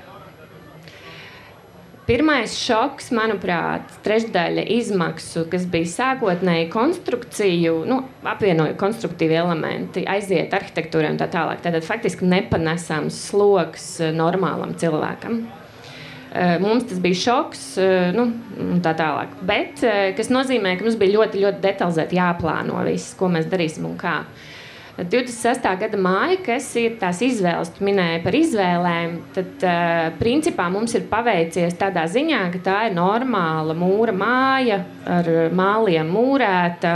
Pirmais šoks, manuprāt, trešdaļa izmaksu, kas bija sākotnēji konstrukciju, apvienoja konstruktīvi elementi, aiziet arhitektūrai un tā tālāk. Tātad faktiski nepanesams sloks normālam cilvēkam. Mums tas bija šoks, un tā tālāk. Bet, kas nozīmē, ka mums bija ļoti, ļoti detalizēti jāplāno viss, ko mēs darīsim un kā. 26. gada māja, kas ir tās izvēles, tu minēji par izvēlēm, tad principā mums ir paveicies tādā ziņā, ka tā ir normāla mūra māja ar māliem mūrēta.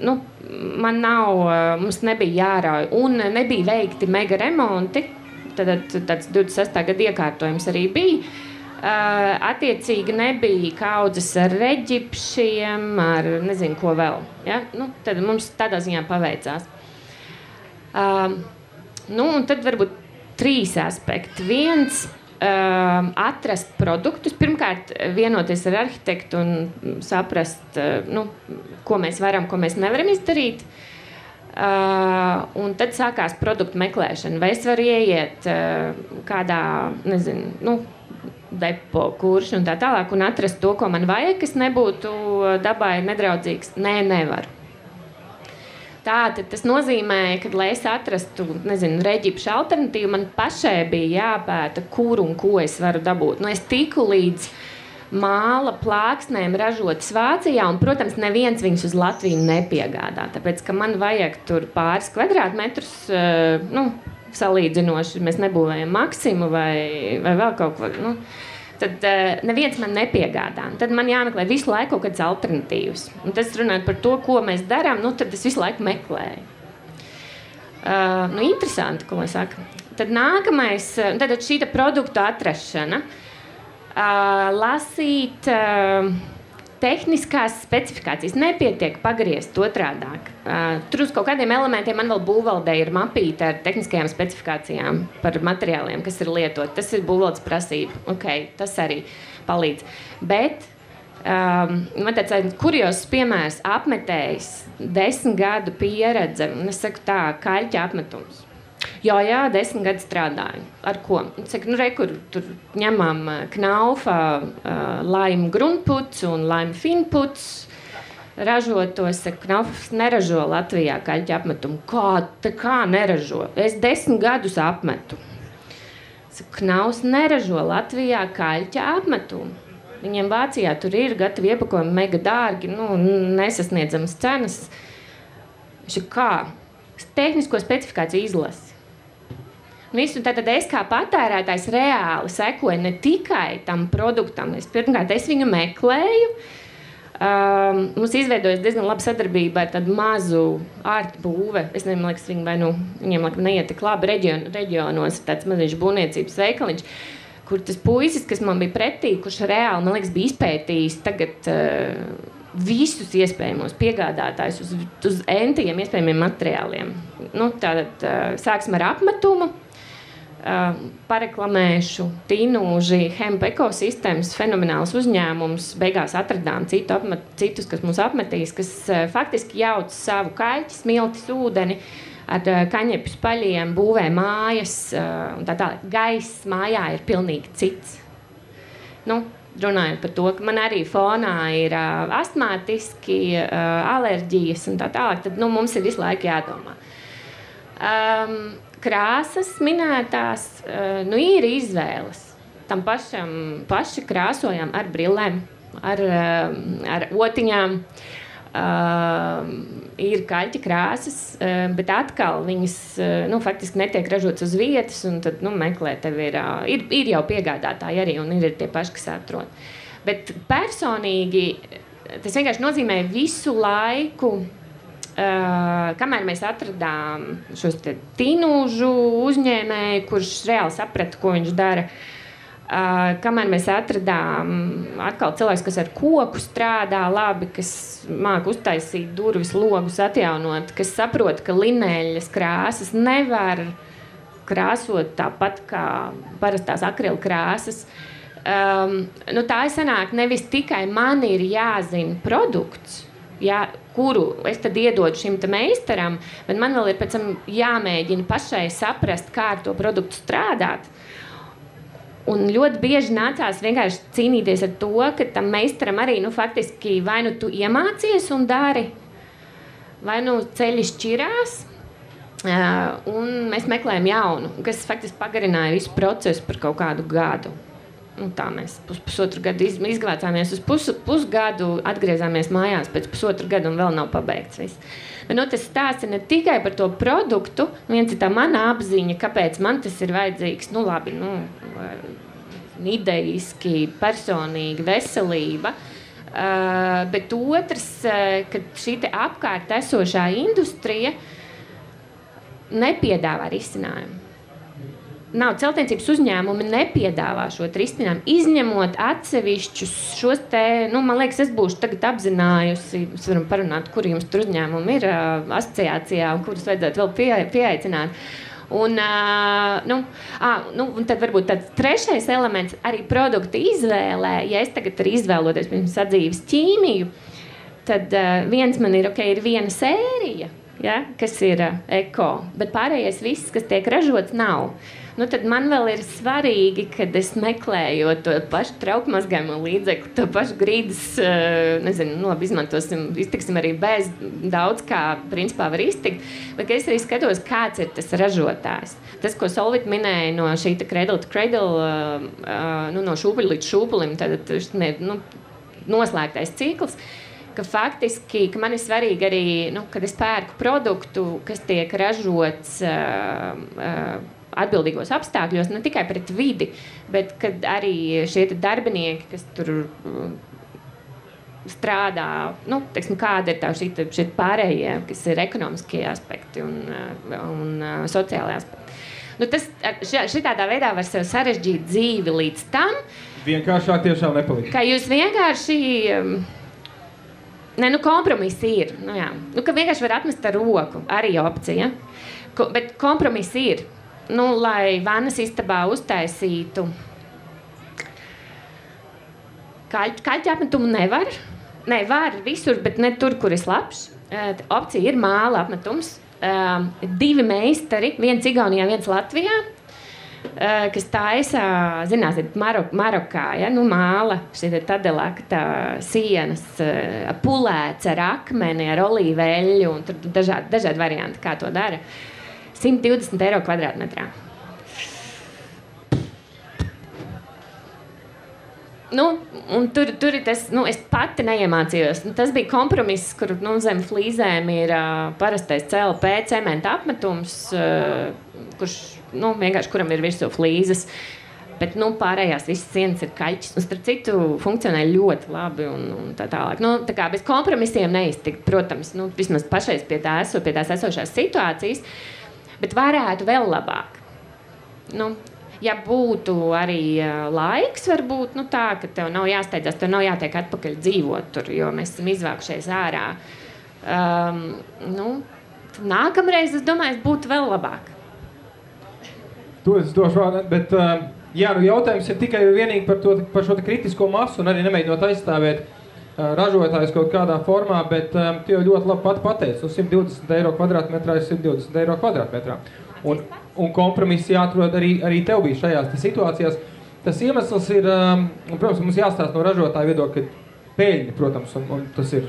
Mums nebija jārauj un nebija veikti mega remonti, tad tāds 26. gada iekārtojums arī bija. Attiecīgi nebija kaudzes ar reģipšiem, ar nezinu ko vēl. Ja? Tad mums tādā ziņā paveicās. Un tad varbūt 3 aspekti. Viens, atrast produktus. Pirmkārt, vienoties ar arhitektu un saprast, ko mēs varam, ko mēs nevaram izdarīt. Un tad sākās produktu meklēšana. Vai es varu ieiet kādā, nezinu, depo, kurš un tā tālāk un atrast to, ko man vajag, kas nebūtu dabai nedraudzīgs. Nē, nevaru. Tātad tas nozīmē, ka, lai es atrastu, reģipšu alternatīvu, man pašai bija jāpēta, kur un ko es varu dabūt. Es tiku līdz māla plāksnēm ražotas Vācijā, un, protams, neviens viņus uz Latviju nepiegādā, tāpēc, ka man vajag tur pāris kvadrātmetrus, salīdzinoši, mēs nebūvējam Maksimu vai vēl kaut ko, tad neviens man nepiegādā. Tad man jāmeklē visu laiku kaut kādas alternatīvas. Un tas runājot par to, ko mēs darām, tad es visu laiku meklēju. Interesanti, ko lai saka. Tad nākamais, tad šī produktu atrašana, lasīt tehniskās specifikācijas. Nepietiek pagriezt otrādāk. Tur uz kaut kādiem elementiem man vēl būvvaldē ir mapīta ar tehniskajām specifikācijām par materiāliem, kas ir lietot. Tas ir būvvaldes prasība. Tas arī palīdz. Bet man tāds kuriozs piemērs apmetējs 10 gadu pieredze, un es saku tā, kaļķa apmetums. Jā, 10 gadu strādāju. Ar ko? Saku, kur tur ņemam Knaufa laimu grundputs un laimu finputs. Ražotos, saku, Knaufs neražo Latvijā kaļķa apmetumu. Kā neražo? Es 10 gadus apmetu. Saku, Knaufs neražo Latvijā kaļķa apmetumu. Viņiem Vācijā tur ir gatavi iepakojumi mega dārgi, nesasniedzamas cenas. Viņš ir kā? Tehnisko specifikāciju izlasi. Visu, tātad es kā patērētājs reāli sekoju ne tikai tam produktam. Pirmkārt, es viņu meklēju. Mums izveidojas diezgan laba sadarbība ar tādu mazu ārtu būve. Es nezinu, man liekas, viņiem neiet tik labi reģionos, tāds maziņš būvniecības veikaliņš, kur tas puisis, kas man bija pretī, kurš reāli, man liekas, bija izpētījis tagad visus iespējamos piegādātājus uz entiem iespējamiem materiāliem. Tātad sāksim ar apmetumu. Pareklamēšu Tinūži Hemp ekosistēmas fenomenāls uzņēmums. Beigās atradām citus, kas mums apmetīs, kas faktiski jauc savu kaļķi, smiltis, ūdeni ar kaņepju spaļiem, būvē mājas un tā tālāk. Gaiss mājā ir pilnīgi cits. runājot par to, ka man arī fonā ir astmātiski, alerģijas un tā tālāk, tad mums ir visu laiku jādomā. Krāsas minētās, ir izvēles. Tam paši krāsojam ar brillēm, ar otiņām. Ir kaļķa krāsas, bet atkal viņas faktiski netiek ražotas uz vietas, un tad meklē, tev ir jau piegādātāji arī, un ir tie paši, kas atrod. Bet personīgi tas vienkārši nozīmē visu laiku, kamēr mēs atradām šos tinūžu uzņēmēju, kurš reāli saprata, ko viņš dara. Kamēr mēs atradām atkal cilvēks, kas ar koku strādā labi, kas māk uztaisīt durvis, logus, atjaunot, kas saprot, ka lineļas krāsas nevar krāsot tāpat kā parastās akrila krāsas. Tā sanāk, nevis tikai man ir jāzina produkts, kuru es tad iedodu šim meistaram, bet man vēl ir pēc tam jāmēģina pašai saprast, kā ar to produktu strādāt. Un ļoti bieži nācās vienkārši cīnīties ar to, ka tam meistaram arī, faktiski vai tu iemācies un dari, vai ceļi šķirās, un mēs meklējam jaunu, kas faktiski pagarināja visu procesu par kaut kādu gadu. Tā mēs pusotru gadu izglācāmies uz pusgadu, atgriezāmies mājās pēc pusotru gadu un vēl nav pabeigts viss. Bet, tas stāsts ir ne tikai par to produktu, viens ir tā mana apziņa, kāpēc man tas ir vajadzīgs, ideiski, personīgi, veselība, bet otrs, ka šī apkārt esošā industrija nepiedāvā risinājumu. Celtniecības uzņēmumi nepiedāvā šo risinājumu, izņemot atsevišķus šos man liekas, es būšu tagad apzinājusi, mēs varam parunāt, kuri jums tur uzņēmumi ir asociācijā un kurus vajadzētu vēl pieaicināt. Un tad varbūt tāds trešais elements arī produkta izvēlē. Ja es tagad arī izvēloties, piemēram, sadzīves ķīmiju, tad viens man ir viena sērija, kas ir eko, bet pārējais viss, kas tiek ražots, nav. Tad man vēl ir svarīgi, kad es meklēju to pašu traukmazgājumu līdzekli, to pašu grīdas, iztiksim arī bez daudz, kā principā var iztikt, bet es arī skatos, kāds ir tas ražotājs. Tas, ko Solvit minēja no šī cradle to cradle, no šūpuļa līdz šūpulim, tad noslēgtais cikls, ka faktiski, ka man ir svarīgi arī, kad es pērku produktu, kas tiek ražots atbildīgos apstākļos, ne tikai pret vidi, bet kad arī šie darbinieki, kas tur strādā, kāda ir tā šie pārējie, kas ir ekonomiskie aspekti un sociālai aspekti. Šitādā veidā var sev sarežģīt dzīvi līdz tam. Vienkāršāk tiešām nepalīdz. Ka jūs vienkārši... kompromisi ir. Ka vienkārši var atmest ar roku, arī opcija. Bet kompromisi ir. Lai vannas istabā uztaisītu kaļķa apmetumu nevar. Ne, var visur, bet ne tur, kur ir labs. Opcija ir māla apmetums. 2 meistari, viens Igaunijā, viens Latvijā, kas taisa, zināsiet, Marokā, māla, šī tadelakta sienas, pulēts ar akmeni, ar olīveļu, un tur dažādi varianti, kā to dara. 120 eiro kvadrātmetrā. Un tur ir tas, es pati neiemācījos. Tas bija kompromiss, kur zem flīzēm ir parastais CLP cementa apmetums, kurš, vienkārši kuram ir virsū flīzes. Bet, pārējās visas sienas ir kaļķis. Un starp citu funkcionē ļoti labi un tā tālāk. Tā kā bez kompromisiem neiztikt, protams, vismaz pašais pie tās esošās situācijas, bet varētu vēl labāk. Ja būtu arī laiks, varbūt tā, ka tev nav jāsteidzās, tev nav jātiek atpakaļ dzīvot tur, jo mēs esam izvākušies ārā. Nākamreiz, es domāju, būtu vēl labāk. To es došu vārdu, bet jautājums ir tikai vienīgi par šo kritisko masu un arī nemēģinot aizstāvēt ražotājus kaut kādā formā, bet tu jau ļoti labi pat pateici, 120 eiro kvadrātmetrā ir 120 eiro kvadrātmetrā. Un kompromisi jāatrod arī tev bija šajās situācijās. Tas iemesls ir, protams, mums jāstāsta no ražotāja viedokļa, ka peļņa, protams, un tas ir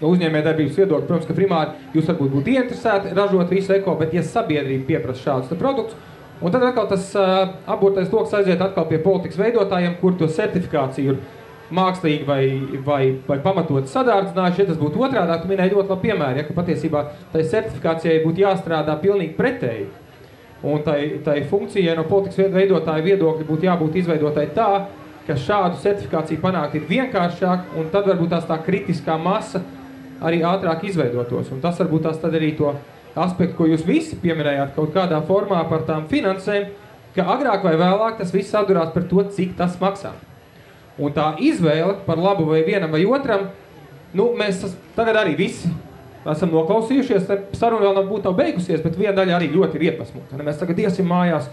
no uzņēmējdarbības viedokļa, protams, ka primāri jūs varbūt būtu ieinteresēti ražot visu eko, bet ja sabiedrība pieprasa šādus produktus, un tad atkal tas apburtais loks aiziet atkal pie politikas veidotājiem, kur to certifikāciju ir mākslīgi vai pamatot sadārdzinājuši, ja tas būtu otrādāk, tu minēji ļoti labi piemēri, ja, ka patiesībā tai certifikācijai būtu jāstrādā pilnīgi pretēji. Un tai funkcijai no politikas veidotāja viedokļa būtu jābūt izveidotai tā, ka šādu certifikāciju panākt ir vienkāršāk, un tad varbūt tās tā kritiskā masa arī ātrāk izveidotos. Un tas varbūt tās tad arī to aspektu, ko jūs visi pieminējāt kaut kādā formā par tām finansēm, ka agrāk vai vēlāk tas viss atdurās par to, cik tas maksā. Un tā izvēle par labu vai vienam vai otram, mēs tagad arī visi esam noklausījušies, saruna vēl nav beigusies, bet viena daļa arī ļoti ir iepasmota. Mēs tagad iesim mājās,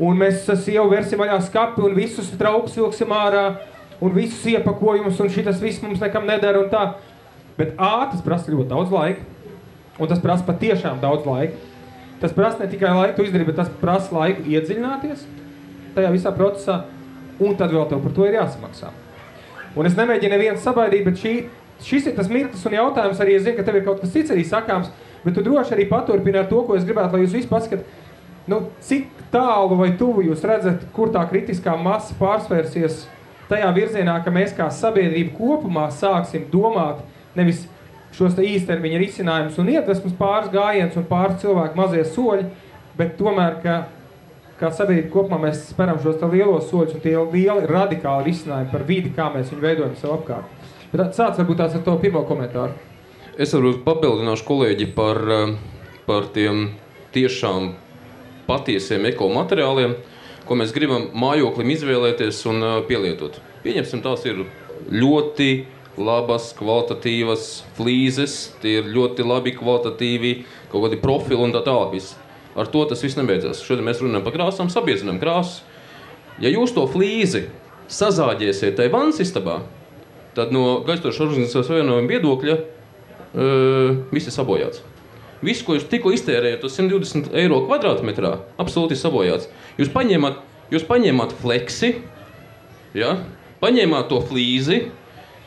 un mēs jau versim vaļā skapi, un visus traukus vilksim ārā, un visus iepakojumus, un šitas viss mums nekam nedara, un tā. Bet tas prasa ļoti daudz laika, un tas prasa patiešām daudz laika. Tas prasa ne tikai laiku izdarīt, bet tas prasa laiku iedziļināties tajā visā procesā, un tad vēl tev par to ir jāsamaksā. Un es nemēģinu nevienu sabaidīt, bet šis ir tas mirklis un jautājums arī, es zinu, ka tev ir kaut kas cits arī sakāms, bet tu droši arī paturpini ar to, ko es gribētu, lai jūs visi paskat, cik tālu vai tuvu jūs redzat, kur tā kritiskā masa pārsvērsies tajā virzienā, ka mēs kā sabiedrība kopumā sāksim domāt nevis šos te īstermiņa risinājumus un iedvesmas pāris gājiens un pāris cilvēku mazie soļi, bet tomēr, kā sabiedrība kopumā mēs speram šos te lielos soļus un tie lieli radikāli risinājumi par vidi, kā mēs viņu veidojam sev apkārt. Bet sāc varbūt tās ar to pirmo komentāru. Es varbūt papildināšu kolēģi par tiem tiešām patiesiem ekomateriāliem, ko mēs gribam mājoklim izvēlēties un pielietot. Pieņemsim, tās ir ļoti labas, kvalitatīvas flīzes, tie ir ļoti labi kvalitatīvi, kaut kādi profili un tā tālāk viss. Ar to tas viss nebeidzās. Šodien mēs runājam par krāsām, sabiedzinām krāsas. Ja jūs to flīzi sazāģēsiet tai vannas istabā, tad no Gaistošās organizācijas savienojuma viedokļa viss ir sabojāts. Viss, ko jūs tikko iztērējat uz 120 eiro kvadrātmetrā, absolūti sabojāts. Jūs paņēmāt fleksi, ja? Paņēmāt to flīzi.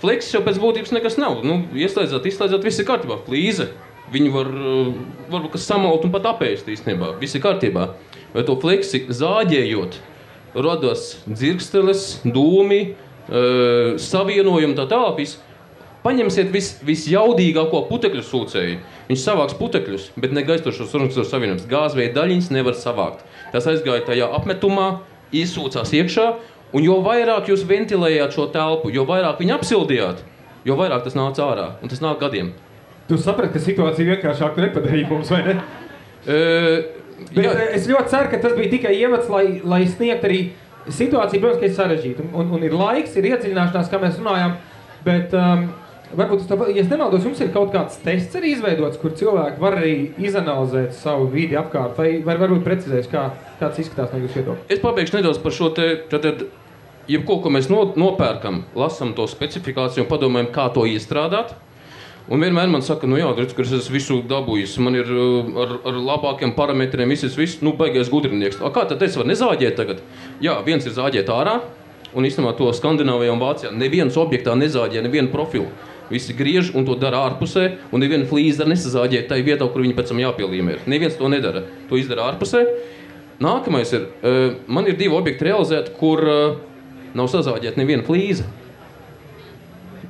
Fleksis jau pēc būtības nekas nav. Ieslēdzāt, viss ir kārtībā. Flīze. Viņi varbūt kas samalt un pat apēst īstenībā. Viss ir kārtībā. Vai to fleksi zāģējot, radās dzirksteles, dūmi, savienojumi tā tālāk. Paņemsiet visjaudīgāko putekļu sūcēju. Viņš savāks putekļus, bet ne Gaistošās organizācijas savienības. Gāzveida daļiņas nevar savākt. Tas aizgāja tajā apmetumā, izsūcās iekšā, un jo vairāk jūs ventilējāt šo telpu, jo vairāk viņu apsildījāt, jo vairāk tas nāca ārā. Un tas nāk gadiem. Tu saprati, ka situācija vienkāršāk nepadarīja mums, vai ne? Es ļoti ceru, ka tas bija tikai iemets, lai sniegt arī situāciju, protams, ka ir sarežģīta. Un ir laiks, ir iedziļināšanās, kā mēs runājām, bet varbūt, ja es nemaldos, jums ir kaut kāds tests arī izveidots, kur cilvēki var arī izanalizēt savu vidi apkārt, vai varbūt precizēs, kāds izskatās no jūsu viedokļa? Es pabeigšu nedaudz par šo te, jebko, ko mēs nopērkam, lasam to specifikāciju un padomājam, kā to iestrādāt. Un vienmēr man saka, redz, ka es esmu visu dabūjis, man ir ar labākiem parametriem, viss, baigais gudrinieks. Kā tad es varu nezāģēt tagad? Jā, viens ir zāģēt ārā, un īstenībā to Skandināvijā un Vācijā neviens objektā nezāģē nevienu profilu. Visi griež un to dara ārpusē, un neviena flīze nesazāģē tai vietā, kur viņi pēc tam jāpielīmē. Neviens to nedara, to izdara ārpusē. Nākamais ir, man ir 2 objekti realizēti, kur nav sazāģēta neviena flīze.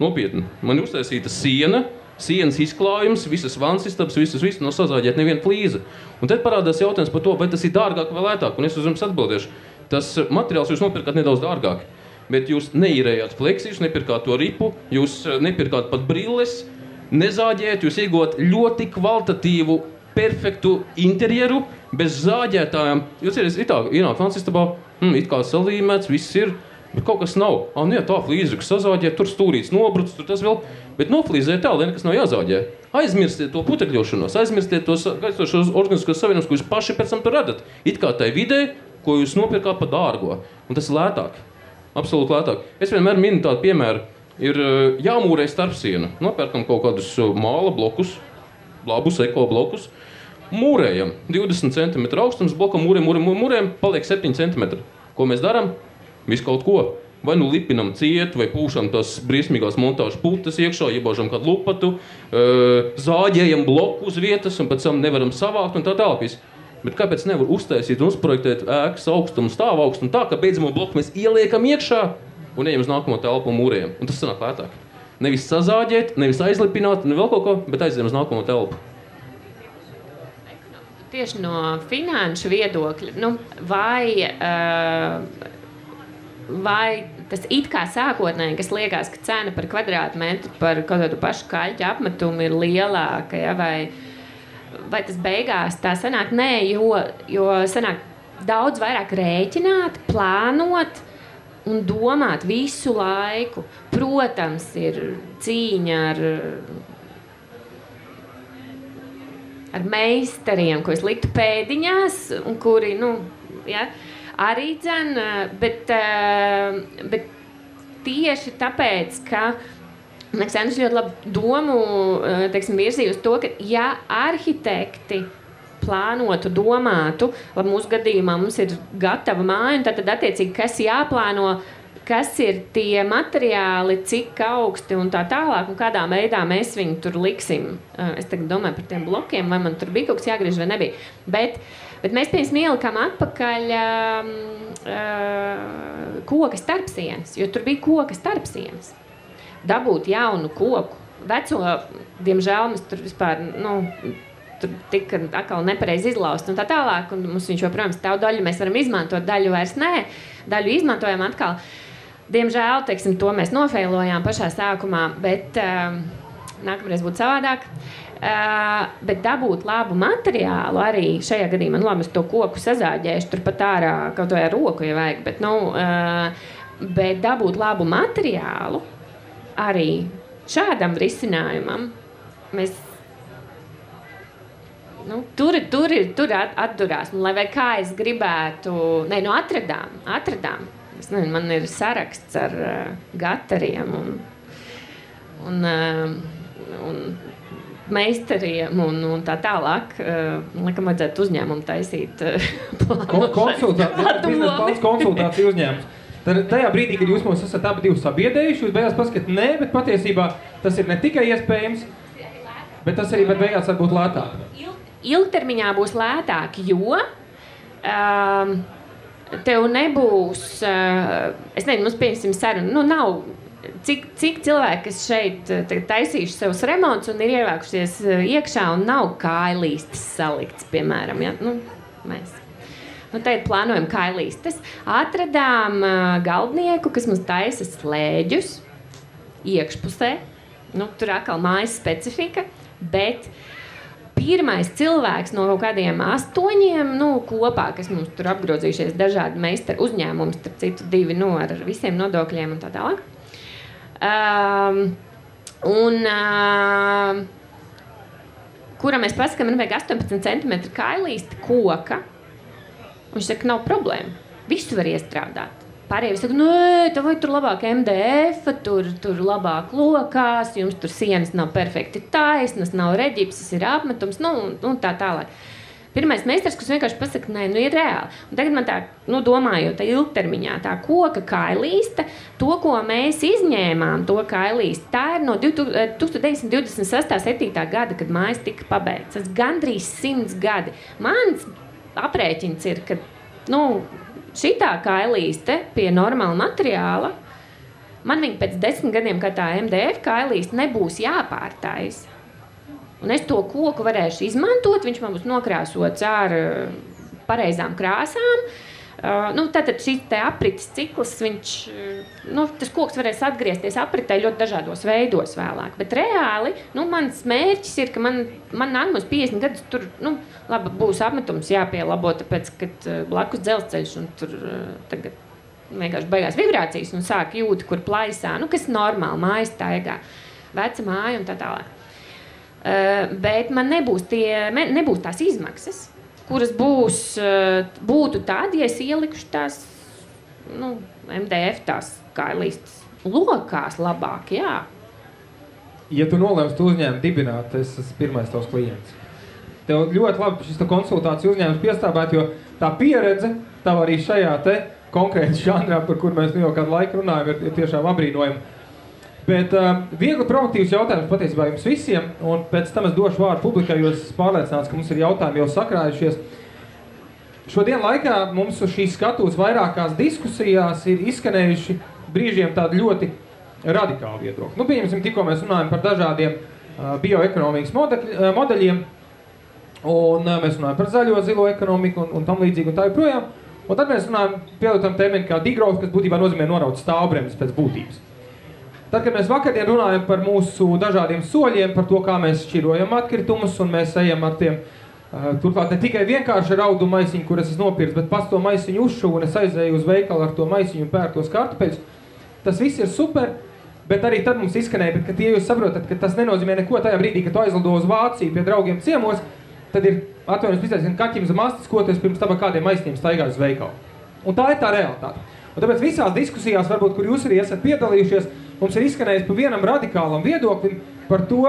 Nopietni, man ir uztaisīta sienas izklājums, visas vannas istabas, viss nav sazāģēta neviena flīze. Un tad parādās jautājums par to, vai tas ir dārgāk vai lētāk, un es uz jums atbildēšu. Tas materiāls jūs nopirkāt nedaudz dārgāk, bet jūs neīrējāt fleksi, jūs nepirkāt to ripu, jūs nepirkāt pat brilles, nezāģējat, jūs iegūt ļoti kvalitatīvu, perfektu interjeru, bez zāģētājām. Jūs ienāk vannas istabā, it kā salīmēts, viss ir, bet kaut kas nav. Tā flīze, kas sazāģē, tur stūrīts nobrucis, tur tas vēl, bet noflīzē tā, lai nekas nav jāzāģē. Aizmirstiet to putekļošanos, aizmirstiet to Gaistošās organizācijas savienības, ko jūs paši pēc tam tur radat. It kā tai vidē, ko jūs nopirkāt par dārgo. Un tas ir lētāk. Absolūti lētāk. Es vienmēr minu tādu piemēru. Ir jāmūrē starpsiena. Nopērkam kaut kādus māla blokus, labus eko blokus. Mūrējam 20 cm augstums blokam, mūrējam, paliek 7 cm. Ko mēs darām? Visu kaut ko. Vai nu lipinam ciet, vai pūšam tās briesmīgās montāžu putas iekšā, iebāžam kādu lupatu, zāģējam bloku uz vietas un pēc tam nevaram savākt un tā tālāk. Bet kāpēc nevar uztaisīt un uzprojektēt ēkas augstumu, stāvu augstumu tā, ka beidzamo bloku mēs ieliekam iekšā un ejam uz nākamo telpu un mūrējam. Un tas sanāk lētāk. Nevis sazāģēt, nevis aizlipināt, ne vēl kaut ko, bet aizējam uz nākamo telpu. Tieši no finanšu viedokļa, vai tas it kā sākotnēji, kas liekas, ka cena par kvadrātmetru par kaut kādu pašu kaļķu apmetumu ir lielāka, ja, vai tas beigās tā sanāk? Nē, jo sanāk daudz vairāk rēķināt, plānot un domāt visu laiku. Protams, ir cīņa ar meistariem, ko es liktu pēdiņās, un kuri, arī dzen, bet tieši tāpēc, ka Aleksandrs ļoti labu domu virzīja uz to, ka ja arhitekti plānotu, domātu, labi, mūsu gadījumā mums ir gatava māja, un tad attiecīgi, kas jāplāno, kas ir tie materiāli, cik augsti un tā tālāk, un kādā veidā mēs viņu tur liksim. Es tagad domāju par tiem blokiem, vai man tur bija kaut kas jāgriež vai nebija. Bet mēs, piemēram, ielikām atpakaļ koka starpsienas, jo tur bija koka starpsienas. Dabūt jaunu koku. Veco, diemžēl, mēs tur vispār, tur tika atkal nepareizi izlaust un tā tālāk, un mums viņš joprojām stāv daļu, mēs varam izmantot, daļu vairs nē, daļu izmantojam atkal. Diemžēl, teiksim, to mēs nofeilojām pašā sākumā, bet nākamreiz būtu savādāk. Bet dabūt labu materiālu arī šajā gadījumā, labi, es to koku sazāģēšu, tur pat ārā kaut vai ar roku, ja vajag, bet dabūt labu materiālu arī šādam risinājumam, mēs tur atdurās. Lai vai kā es gribētu, atradām. Es nezinu, man ir saraksts ar gatariem un meistariem un tā tālāk. Laikam vajadzētu uzņēmumu taisīt konsultāciju uzņēmums. Tad tajā brīdī, kad jūs mums esat abi divi sabiedējuši, jūs beigās paskatāt, nē, bet patiesībā tas ir ne tikai iespējams, bet tas arī beigās var būt lētāk. Ilgtermiņā būs lētāk, jo tev nebūs, es nezinu, mums pieņemsim sarunu, nav, cik cilvēki, kas šeit taisījuši savus remontus un ir ievākušies iekšā un nav kājlīstes salikts, piemēram, ja? Mēs. Tagad plānojam kailīstes. Atradām galdnieku, kas mums taisa slēģus iekšpusē. Tur atkal mājas specifika, bet pirmais cilvēks no kaut kādiem 8 kopā, kas mums tur apgrozījušies dažādi meistaru uzņēmumi, starp citu 2 ar visiem nodokļiem un tā tālāk. Kuram mēs pasakām, man vajag 18 cm kailīsti koka. Viņš saka, nav problēma. Visu var iestrādāt. Pārējie saka, tev vai tur labāk MDF, tur labāk lokās, jums tur sienas nav perfekti taisnas, nav reģipsis, ir apmetums, un tā tālāk. Pirmais meistars, kas vienkārši pasaka, nē, ir reāli. Un tagad man tā, domājot, tā ilgtermiņā, tā koka kailīsta, to, ko mēs izņēmām, to kailīsti, tā ir no 1926. 7. gada, kad mājas tika pabeigts. Tas gandrīz 100 gadi. Mans aprēķins ir, ka šitā kailīste pie normāla materiāla, man viņa pēc 10 gadiem, kā tā MDF kailīste, nebūs jāpārtaisa. Un es to koku varēšu izmantot, viņš man būs nokrāsots ar pareizām krāsām. Tātad šis te aprites cikls, tas koks varēs atgriezties apritē ļoti dažādos veidos vēlāk. Bet reāli, mans mērķis ir, ka man nākamos 50 gadus tur, labi, būs apmetums jāpielabo, tāpēc, kad blakus dzelzceļš un tur tagad vienkārši beigās vibrācijas un sāk jūti, kur plaisā, kas normāli, mājas taigā, veca māja un tā tālāk. Bet man nebūs tās izmaksas, kuras būtu tādi, ja es ielikušu tās, MDF tās kailīstes lokās labāk, jā. Ja tu nolēmsi tu uzņēmumu dibināt, es esmu pirmais tavs klients. Tev ļoti labi šis konsultāciju uzņēmums piestāvēt, jo tā pieredze, tav arī šajā te konkrēti žanrā, par kur mēs jau kādu laiku runājam, ir tiešām apbrīnojami. Bet viegli provokatīvs jautājums patiesībā jums visiem, un pēc tam es došu vārdu publikai, jo es pārliecināts, ka mums ir jautājumi jau sakrājušies. Šodien laikā mums uz šīs skatuves vairākās diskusijās ir izskanējuši brīžiem tādi ļoti radikāli viedokļi. Nu, pieņemsim, tikko mēs runājam par dažādiem bioekonomikas modeļiem, un mēs runājam par zaļo, zilo ekonomiku un tam līdzīgi un tā joprojām. Un tad mēs runājam pielietam terminu kā degrowth, kas būtībā nozīmē noraut stāvbremzes pēc būtības. Tad, kad mēs vakardien runājam par mūsu dažādiem soļiem, par to, kā mēs šķirojam atkritumus, un mēs ejam ar tiem, turklāt ne tikai vienkārši ar audu maisiņu, kur es esmu nopircis, bet pats to maisiņu uzšuvu, un es aizēju uz veikalu ar to maisiņu un pērtos kartupeļus. Tas viss ir super, bet arī tad mums izskanēja, bet, kad jūs saprotat, ka tas nenozīmē neko tajā brīdī, kad tu aizlido uz Vāciju pie draugiem ciemos, tad ir atvainojums pizēs, kaķim zem astes, ko tu pirms tam kādiem maisiņiem staigāju uz veikalu. Un tā ir tā realitāte. Un tāpēc visās diskusijās, varbūt, kur jūs arī esat piedalījušies, mums ir izskanējis pa vienam radikālam viedoklim par to,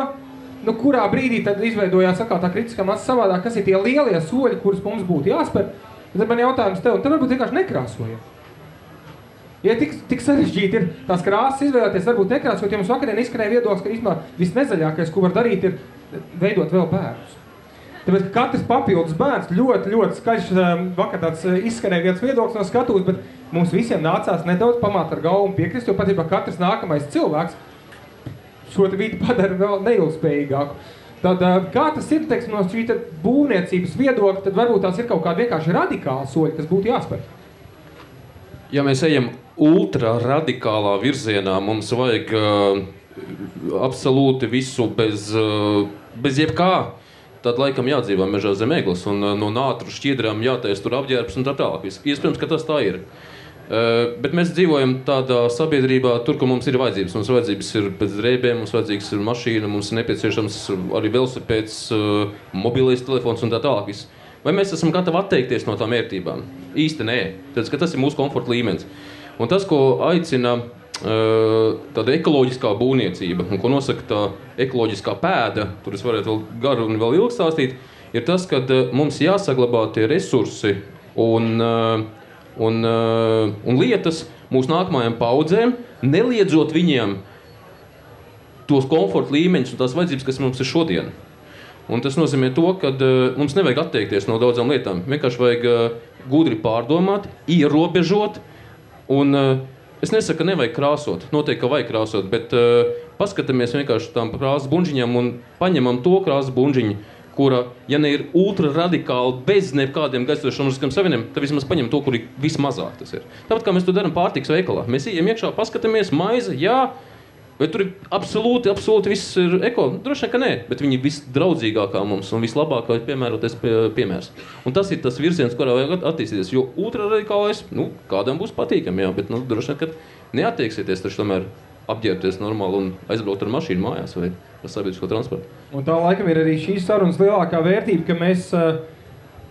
nu, kurā brīdī tad izveidojās atkal tā kritiskā masa savādāk, kas ir tie lielie soļi, kurus mums būtu jāspēr. Tad man jautājums tev, tad varbūt vienkārši nekrāsojam. Ja tik sarežģīti ir tās krāsas izvēlēties, varbūt nekrāsot, ja mums vakarien izskanēja viedoklis, ka īstenībā visnezaļākais, ko var darīt, ir veidot vēl bērnus. Tāpēc, ka katrs papildus bērns ļoti skaļš, vakar tāds izskanēja viens viedoklis no skatuves, bet mums visiem nācās nedaudz pamāt ar galvu un piekrist, jo patiesībā katrs nākamais cilvēks šo vidi padara vēl neilgspējīgāku. Tad, kā tas ir, teiksim, no šī būvniecības viedokļa, tad varbūt tās ir kaut kādi vienkārši radikāli soļi, kas būtu jāspēr. Ja mēs ejam ultra radikālā virzienā, mums vajag absolūti visu bez jebkā. Tad laikam jādzīvā mežā zem egles un no nātru šķiedrām jātais tur apģērbs un tā tālāk. Iespējams, ka tas tā ir. Bet mēs dzīvojam tādā sabiedrībā, tur, kur mums ir vajadzības. Mums vajadzības ir pēc drēbēm, mums vajadzīgs ir mašīna, mums ir nepieciešams arī velosipēds, mobilais telefons un tā tālāk. Vai mēs esam gatavi atteikties no tām vērtībām? Īsti nē. Tāpēc, ka tas ir mūsu komforta līmenis. Un tas, ko aicina tāda ekoloģiskā būvniecība, un ko nosaka tā ekoloģiskā pēda, tur es varētu vēl garu un vēl ilgi stāstīt, ir tas, ka mums jāsaglabā tie resursi un lietas mūsu nākamajām paudzēm, neliedzot viņiem tos komforta līmeņus un tās vajadzības, kas mums ir šodien. Un tas nozīmē to, ka mums nevajag atteikties no daudzām lietām. Vienkārši vajag gudri pārdomāt, ierobežot un es nesaku, ka nevajag krāsot, noteikti, ka vajag krāsot, bet paskatāmies vienkārši tām krāsas buņģiņām un paņemam to krāsas buņģiņu, kura, ja ne ir ultra radikāli bez nekādiem gaisotšiem savieniem, tad vismaz paņem to, kur ir vismazāk tas ir. Tāpat kā mēs to darām pārtikas veikalā. Mēs ejam iekšā, paskatāmies, maize, jā, vai tur ir absolūti viss ir eko? Droši vien, ka nē, bet viņi visdraudzīgākā mums un vislabākā piemēroties piemērs. Un tas ir tas virziens, kurā vajag attīstīties, jo ultraradikālais, kādam būs patīkami, jā, bet, droši vien, ka neattieksieties taču tomēr apģērbties normāli un aizbraukt ar mašīnu mājās vai ar sabiedrisko transportu. Un tā laikam ir arī šīs sarunas lielākā vērtība, ka mēs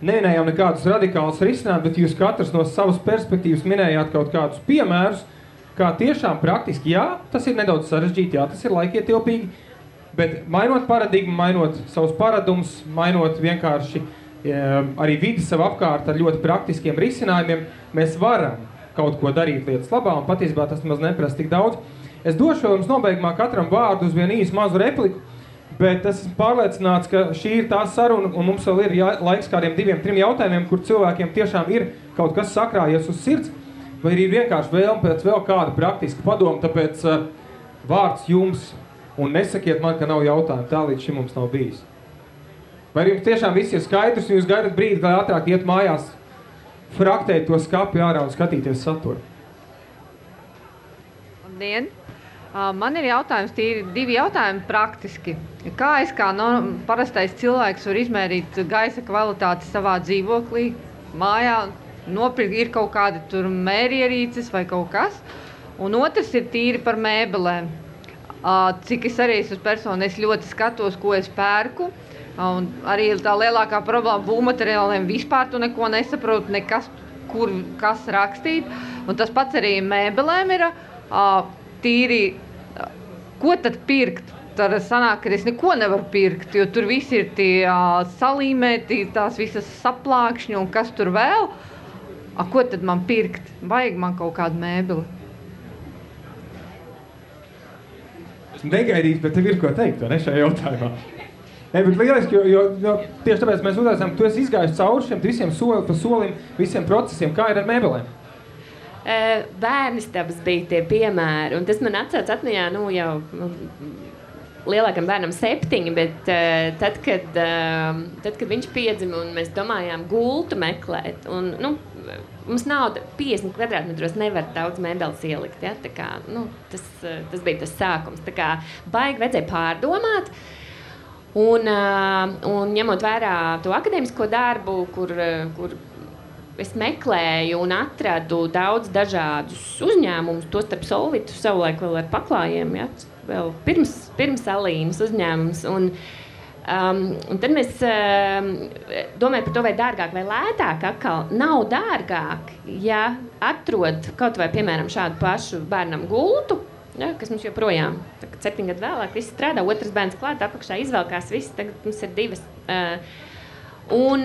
neminējām nekādus radikālus risinājumus, bet jūs katrs no savas perspektīvas minējāt kaut kādus piemērus, kā tiešām praktiski, jā, tas ir nedaudz sarežģīti, jā, tas ir laikietilpīgi, bet mainot paradigmu, mainot savus paradumus, mainot vienkārši arī vidi sev apkārt ar ļoti praktiskiem risinājumiem, mēs varam kaut ko darīt lietas labā, un patiesībā tas maz neprasa tik daudz. Es došu jums nobeigumā katram vārdu uz vienu īsu mazu repliku, bet es esmu pārliecināts, ka šī ir tā saruna, un mums vēl ir laiks kādiem 2-3 jautājumiem, kur cilvēkiem tiešām ir kaut kas sakrājies uz sirds, vai ir vienkārši vēlme pēc vēl kāda praktiska padoma, tāpēc vārds jums, un nesakiet man, ka nav jautājumu, tā līdz šim mums nav bijis. Vai jums tiešām viss ir skaidrs, un jūs gaidat brīdi, lai ātrāk iet mājās, fraktēt to skapi ārā un skatīties saturu? Labdien! Man ir jautājums, tīri 2 jautājumi praktiski. Kā es kā parastais cilvēks var izmērīt gaisa kvalitāti savā dzīvoklī, mājā, nopirkt ir kaut kādi tur mērierīces vai kaut kas. Un otrs ir tīri par mēbelēm. Cik es arī esmu persona, es ļoti skatos, ko es pērku. Un arī tā lielākā problēma būvmateriāliem vispār tu neko nesaproti, nekas, kur kas rakstīt. Un tas pats arī mēbelēm ir tīri, ko tad pirkt? Tad sanāk, ka es neko nevaru pirkt, jo tur visi ir tie salīmēti, tās visas saplākšņi un kas tur vēl. Ko tad man pirkt? Vajag man kaut kādu mēbeli. Esmu negaidījis, bet tev ir ko teikt, vai ne, šajā jautājumā? Bet lieliski, jo tieši tāpēc mēs uzaicinām, tu esi izgājis cauri šiem visiem soli pa solim, visiem procesiem. Kā ir ar mēbelēm? Bērnistabas bija tie piemēri, un tas man atmiņā, jau lielākam bērnam 7, bet tad, kad viņš piedzima un mēs domājām gultu meklēt, un, mums nauda 50 kvadrātmetros nevar daudz mēbeles ielikt, ja? Tā kā, tas bija tas sākums, tā kā baigi vajadzēja pārdomāt, un ņemot vērā to akadēmisko darbu, kur es meklēju un atradu daudz dažādus uzņēmumus, to starp Solvitu savulaik vēl ar paklājiem, ja? Vēl pirms Alīnas uzņēmums. Un tad mēs domājam par to, vai dārgāk vai lētāk atkal. Nav dārgāk, ja atrod kaut vai, piemēram, šādu pašu bērnam gultu, ja, kas mums joprojām, 7 gadu vēlāk, viss strādā, otrs bērns klāt, apakšā izvelkās viss, tagad mums ir 2. Un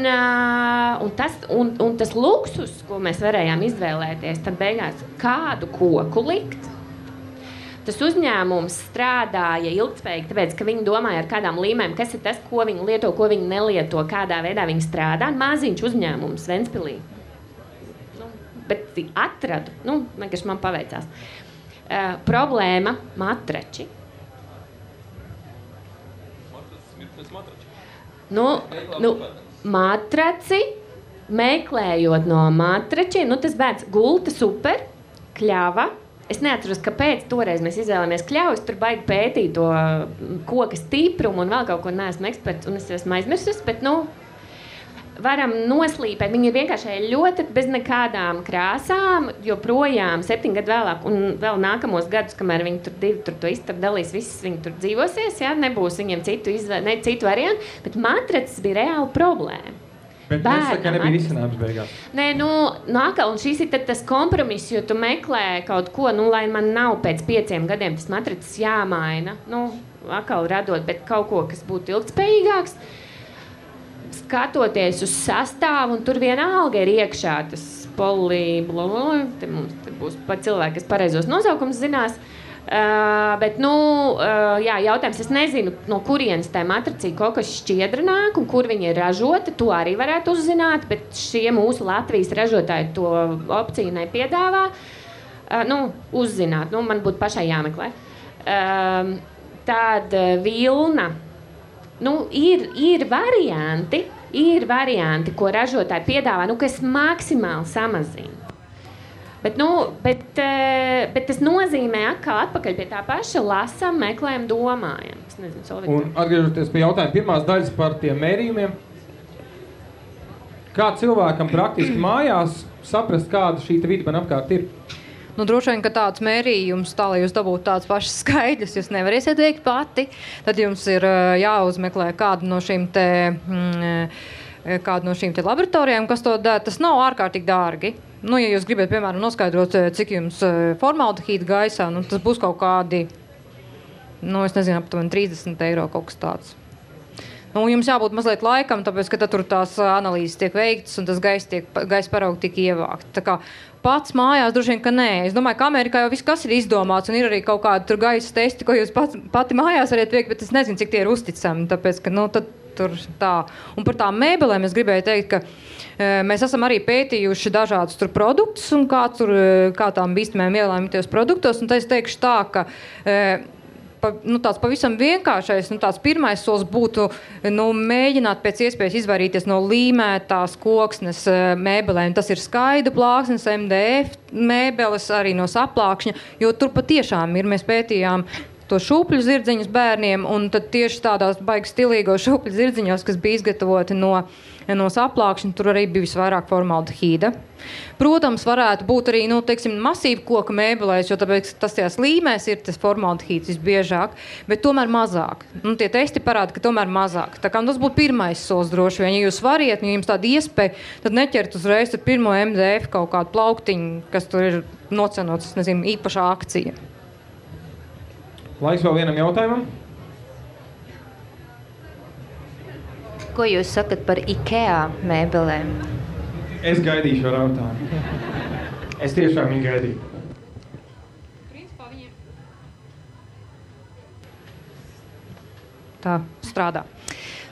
tas luksus, ko mēs varējām izvēlēties, tad beigās kādu koku likt. Tas uzņēmums strādāja ilgtspējīgi, tāpēc, ka viņi domāja ar kādām līmēm, kas ir tas, ko viņi lieto, ko viņi nelieto, kādā veidā viņi strādā. Maziņš uzņēmums Ventspilī. Bet atradu, vienkārši man paveicās. Problēma – matrači. Matraci, meklējot no matračiem, tas bērns gulta super, kļava. Es neatceros, kāpēc toreiz mēs izvēlējāmies kļavus, tur baigi pētīt to koka stiprumu un vēl kaut ko neesmu eksperts, un es esmu aizmirsus, bet, varam noslīpēt. Viņi ir vienkārši ļoti bez nekādām krāsām, joprojām 7 gadu vēlāk, un vēl nākamos gadus, kamēr viņi tur to istabu dalīs, visas viņi tur dzīvosies, ja? Nebūs viņiem citu variantu, bet matracis bija reāla problēma. Bet nesaka, ka nebija risinājums beigās. Nē, un šis ir tas kompromiss, jo tu meklē kaut ko, lai man nav pēc 5 gadiem tas matracis jāmaina, atkal radot, bet kaut ko, kas būtu ilgtspējīgāks, skatoties uz sastāvu, un tur vienalga ir iekšā tas te mums būs pat cilvēki, kas pareizos nosaukums zinās, bet, jautājums, es nezinu, no kurienes tā matricī kaut kas šķiedra nāk un kur viņa ir ražota, to arī varētu uzzināt, bet šie mūsu Latvijas ražotāji to opciju nepiedāvā. Uzzināt, man būtu pašai jāmeklē. Tāda vilna, ir varianti, ko ražotāji piedāvā, kas maksimāli samazina. Bet tas nozīmē atkal atpakaļ pie tā paša lasam, meklējam, domājam. Es nezinu, Solvita. Un atgriežoties pie jautājuma pirmās daļas par tiem mērījumiem, kā cilvēkam praktiski mājās saprast, kāda šī vide man apkārt ir? Droši vien, ka tāds mērījums, tā, lai jūs dabūtu tāds pašas skaidrs, jūs nevarēsiet veikt pati, tad jums ir jāuzmeklē kādu no šīm te laboratorijām, kas to dara. Tas nav ārkārtīgi dārgi. Ja jūs gribat, piemēram, noskaidrot, cik jums formaldehīda gaisā, tas būs kaut kādi, es nezinu, aptuveni 30 eiro kaut kas tāds. Jums jābūt mazliet laikam, tāpēc, ka tad tur tās analīzes tiek veiktas un tas gaisa paraugi tiek ievākt. Tā kā pats mājās droši vien, ka nē. Es domāju, ka Amerikā jau viss kas ir izdomāts un ir arī kaut kādi tur gaisa testi, ko jūs pati mājās variet veikt, bet es nezinu, cik tie ir uzticami, tāpēc, ka, tad tur tā. Un par tām mēbelēm es gribēju teikt, ka mēs esam arī pētījuši dažādus tur produktus un kā tām bīstamajām vielām ir tajos produktos, un es teikšu tā, ka tāds pavisam vienkāršais, tāds pirmais solis būtu mēģināt pēc iespējas izvairīties no līmētās koksnes mēbelēm. Tas ir skaida plāksnes, MDF mēbeles, arī no saplākšņa, jo tur patiešām ir, mēs pētījām to šūpļu zirdziņus bērniem, un tad tieši tādās baigi stilīgos šūpļu zirdziņos, kas bija izgatavoti no saplākšņa, tur arī bija visvairāk formaldehīda. Protams, varētu būt arī, masīva koka mēbelēs, jo tāpēc tas tajās līmēs ir tas formaldehīds visbiežāk, bet tomēr mazāk. Tie testi parāda, ka tomēr mazāk. Tā kā tas būtu pirmais solis droši vien. Ja jūs variet, ja jums tāda iespēja, tad neķert uzreiz ar pirmo MDF kaut kādu plauktiņu, kas tur ir nocenots, īpašā akcija. Laiks vēl vienam jautājumam. Ko jūs sakat par IKEA mēbelēm? Es gaidīšu ar jautājumu. Es tiešām viņu gaidīju. Tā strādā.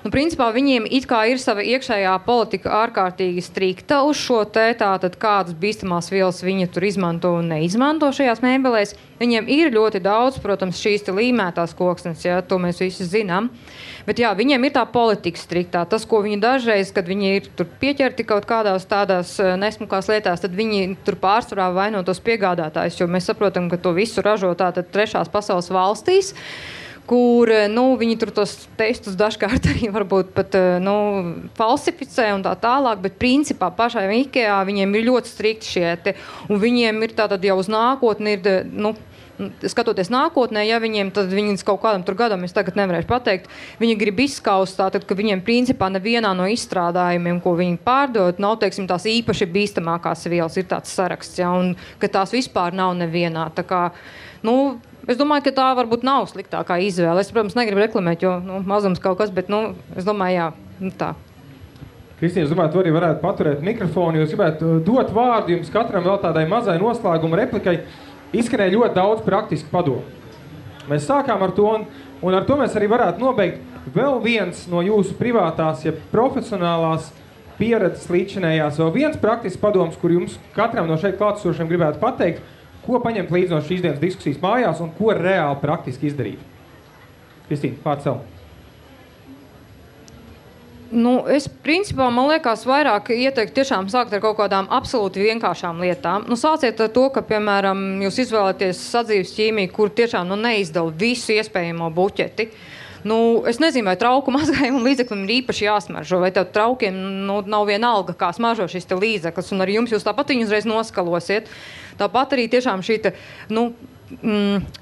Principā viņiem it kā ir sava iekšējā politika ārkārtīgi strikta uz šo tātad kādas bīstamās vielas viņi tur izmanto un neizmanto šajās mēbelēs. Viņiem ir ļoti daudz, protams, šīs līmētās koksnes, ja, to mēs visi zinām. Bet jā, viņiem ir tā politika striktā. Tas, ko viņi dažreiz, kad viņi ir tur pieķerti kaut kādās tādās nesmukās lietās, tad viņi tur pārsvarā vaino tos piegādātājus, jo mēs saprotam, ka to visu ražo tātad trešās pasaules valstīs, kur viņi tur tos testus dažkārt arī varbūt pat falsificē un tā tālāk, bet principā pašai IKEA viņiem ir ļoti strikti šie un viņiem ir tātad jau uz nākotni skatoties nākotnē, ja viņiem tad viņi kaut kādam tur gadam, es tagad nevarēšu pateikt, viņi grib izskaust tātad, ka viņiem principā nevienā no izstrādājumiem, ko viņi pārdod, nav, teiksim, tās īpaši bīstamākās vielas, ir tāds saraksts, ja, un ka tās vispār nav nevienā. Tā kā, es domāju, ka tā varbūt nav sliktākā izvēle. Es, protams, negribu reklamēt, jo mazums kaut kas, bet, es domāju, jā, tā. Kristīna, es domāju, tu arī varētu paturēt mikrofonu, jo es gribētu dot vārdu jums katram vēl tādai mazai noslēguma replikai. Izskanēja ļoti daudz praktisku padomu. Mēs sākām ar to, un ar to mēs arī varētu nobeigt. Vēl viens no jūsu privātās, ja profesionālās pieredzes līdzinējās, vēl viens praktisks padoms, kur jums katram no šeit klātesošiem gribētu pateikt, ko paņemt līdz no šīs dienas diskusijas mājās un ko reāli praktiski izdarīt. Kristīna, pār sev. Es principā, man liekas, vairāk ieteiktu tiešām sākt ar kaut kādām absolūti vienkāršām lietām. Sāciet ar to, ka, piemēram, jūs izvēlaties sadzīves ķīmiju, kur tiešām neizdala visu iespējamo buķeti. Es nezinu, vai trauku mazgājumu līdzeklim ir īpaši jāsmaržo, vai tev traukiem nav vienalga, kā smaržo šis te līdzeklis, un arī jūs tāpat viņu uzreiz noskalosiet. Tāpat arī tiešām šī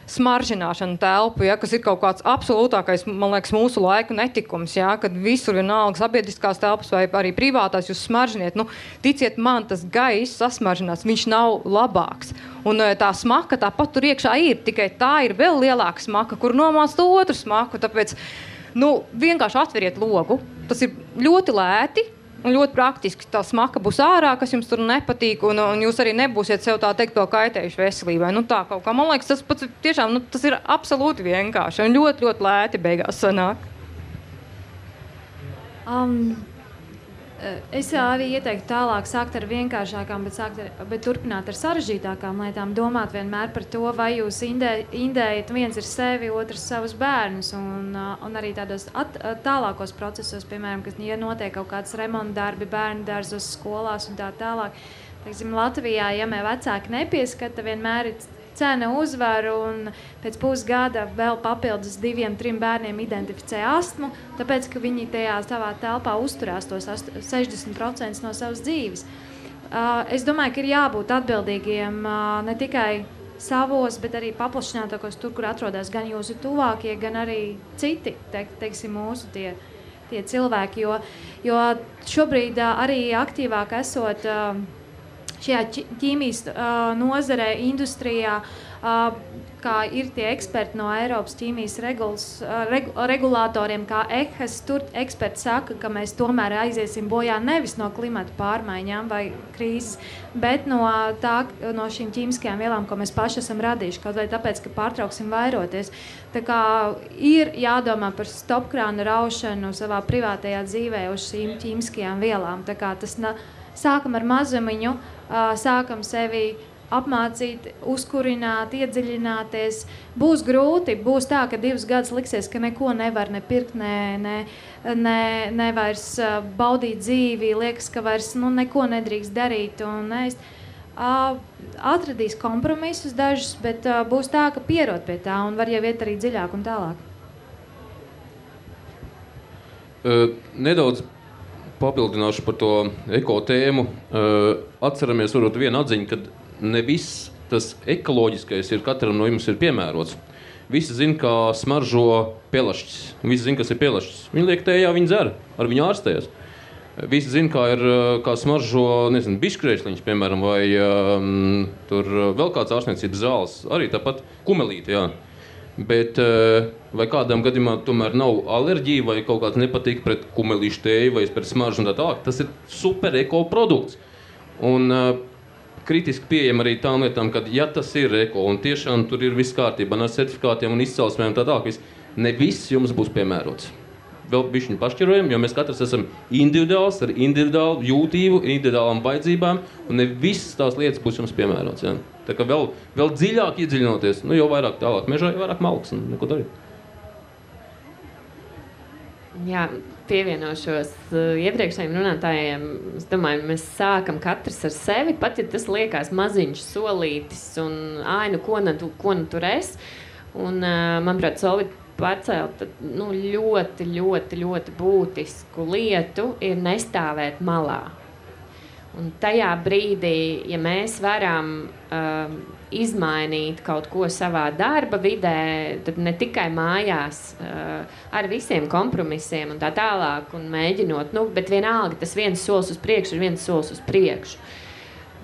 smaržināšana telpu, ja, kas ir kaut kāds absolūtākais, man liekas, mūsu laika netikums, ja, kad visur vienalga sabiedriskās telpas vai arī privātās jūs smaržiniet. Ticiet man, tas gaiss sasmaržinās, viņš nav labāks. Un tā smaka tāpat tur iekšā ir, tikai tā ir vēl lielāka smaka, kur nomāc to otru smaku. Tāpēc, vienkārši atveriet logu. Tas ir ļoti lēti. Un ļoti praktiski tā smaka būs ārā, kas jums tur nepatīk, un jūs arī nebūsiet sev tā teikt to kaitējuši veselībai. Tā kaut kā, man liekas, tas pats tiešām, tas ir absolūti vienkārši un ļoti, ļoti lēti beigās sanāk. Es arī ieteiktu tālāk sākt ar vienkāršākām, bet turpināt ar sarežģītākām lietām, domāt vienmēr par to, vai jūs indējat, viens ir sevi, otrs savus bērnus, un arī tādos tālākos procesos, piemēram, kas, ja notiek kaut kāds remontdarbi, bērnu dārzos, skolās un tā tālāk. Teiksim, Latvijā, ja vecāki nepieskata, vienmēr ir cena uzvar, un pēc pusgada vēl papildus 2-3 bērniem identificē astmu, tāpēc, ka viņi tajā savā telpā uzturās tos 60% no savas dzīves. Es domāju, ka ir jābūt atbildīgiem ne tikai savos, bet arī paplašinātākos tur, kur atrodas gan jūsu tuvākie, gan arī citi, teiksim, mūsu tie cilvēki, jo šobrīd arī aktīvāk esot šajā ķīmijas nozarē, industrijā, kā ir tie eksperti no Eiropas ķīmijas regulātoriem, kā EHAS, tur eksperti saka, ka mēs tomēr aiziesim bojā nevis no klimata pārmaiņām vai krīzes, bet no šīm ķīmiskajām vielām, ko mēs paši esam radījuši, kaut vai tāpēc, ka pārtrauksim vairoties. Tā kā ir jādomā par stopkrānu raušanu savā privātajā dzīvē uz šīm ķīmiskajām vielām. Tā kā tas sākam ar mazumiņu, sākam sevi apmācīt, uzkurināt, iedziļināties. Būs grūti, būs tā, ka 2 gadus liksies, ka neko nevar nepirkt, ne vairs baudīt dzīvi, liekas, ka vairs neko nedrīkst darīt un ēst. Atradīs kompromisus dažus, bet būs tā, ka pierod pie tā un var jau iet arī dziļāk un tālāk. Nedaudz papildināšu par to eko tēmu. Atceramies varbūt vienu atziņu, kad ne viss tas ekoloģiskais ir katram no jums ir piemērots. Visi zina, kā smaržo pelašķis. Visi zina, kas ir pelašķis. Viņi liek tējā, viņi dzer, ar viņu ārstējas. Visi zina, kā smaržo, biškrēšliņš, piemēram, vai tur vēl kāds ārstniecības zāles. Arī tāpat kumelīti, jā. Bet vai kādam gadījumā tomēr nav alerģija vai kaut kāds nepatīk pret kumelīšu tēju vai pret smaržu un tā tālāk, tas ir super eko produkts. Un kritiski pieejam arī tām lietām, ka ja tas ir eko un tiešām tur ir viss kārtībā ar certifikātiem un izcelsmēm un tā tālāk, ne viss jums būs piemērots. Vēl bišķiņu pašķirojam, jo mēs katrs esam individuāls, ar individuālu jūtību, individuālām vajadzībām, un ne visas tās lietas būs jums piemērots. Ja? Tā kā vēl dziļāk iedziļinoties, jo vairāk tālāk mežā, jo vairāk malks un neko darīt. Jā, pievienošos iepriekšējiem runātājiem. Es domāju, mēs sākam katrs ar sevi, pat ja tas liekas maziņš solītis un ko nu tur es. Un, manuprāt, Solvita pārcelt ļoti, ļoti, ļoti būtisku lietu ir nestāvēt malā. Un tajā brīdī, ja mēs varam izmainīt kaut ko savā darba vidē, tad ne tikai mājās ar visiem kompromisiem un tā tālāk un mēģinot, bet vienalga tas viens solis uz priekšu ir viens solis uz priekšu.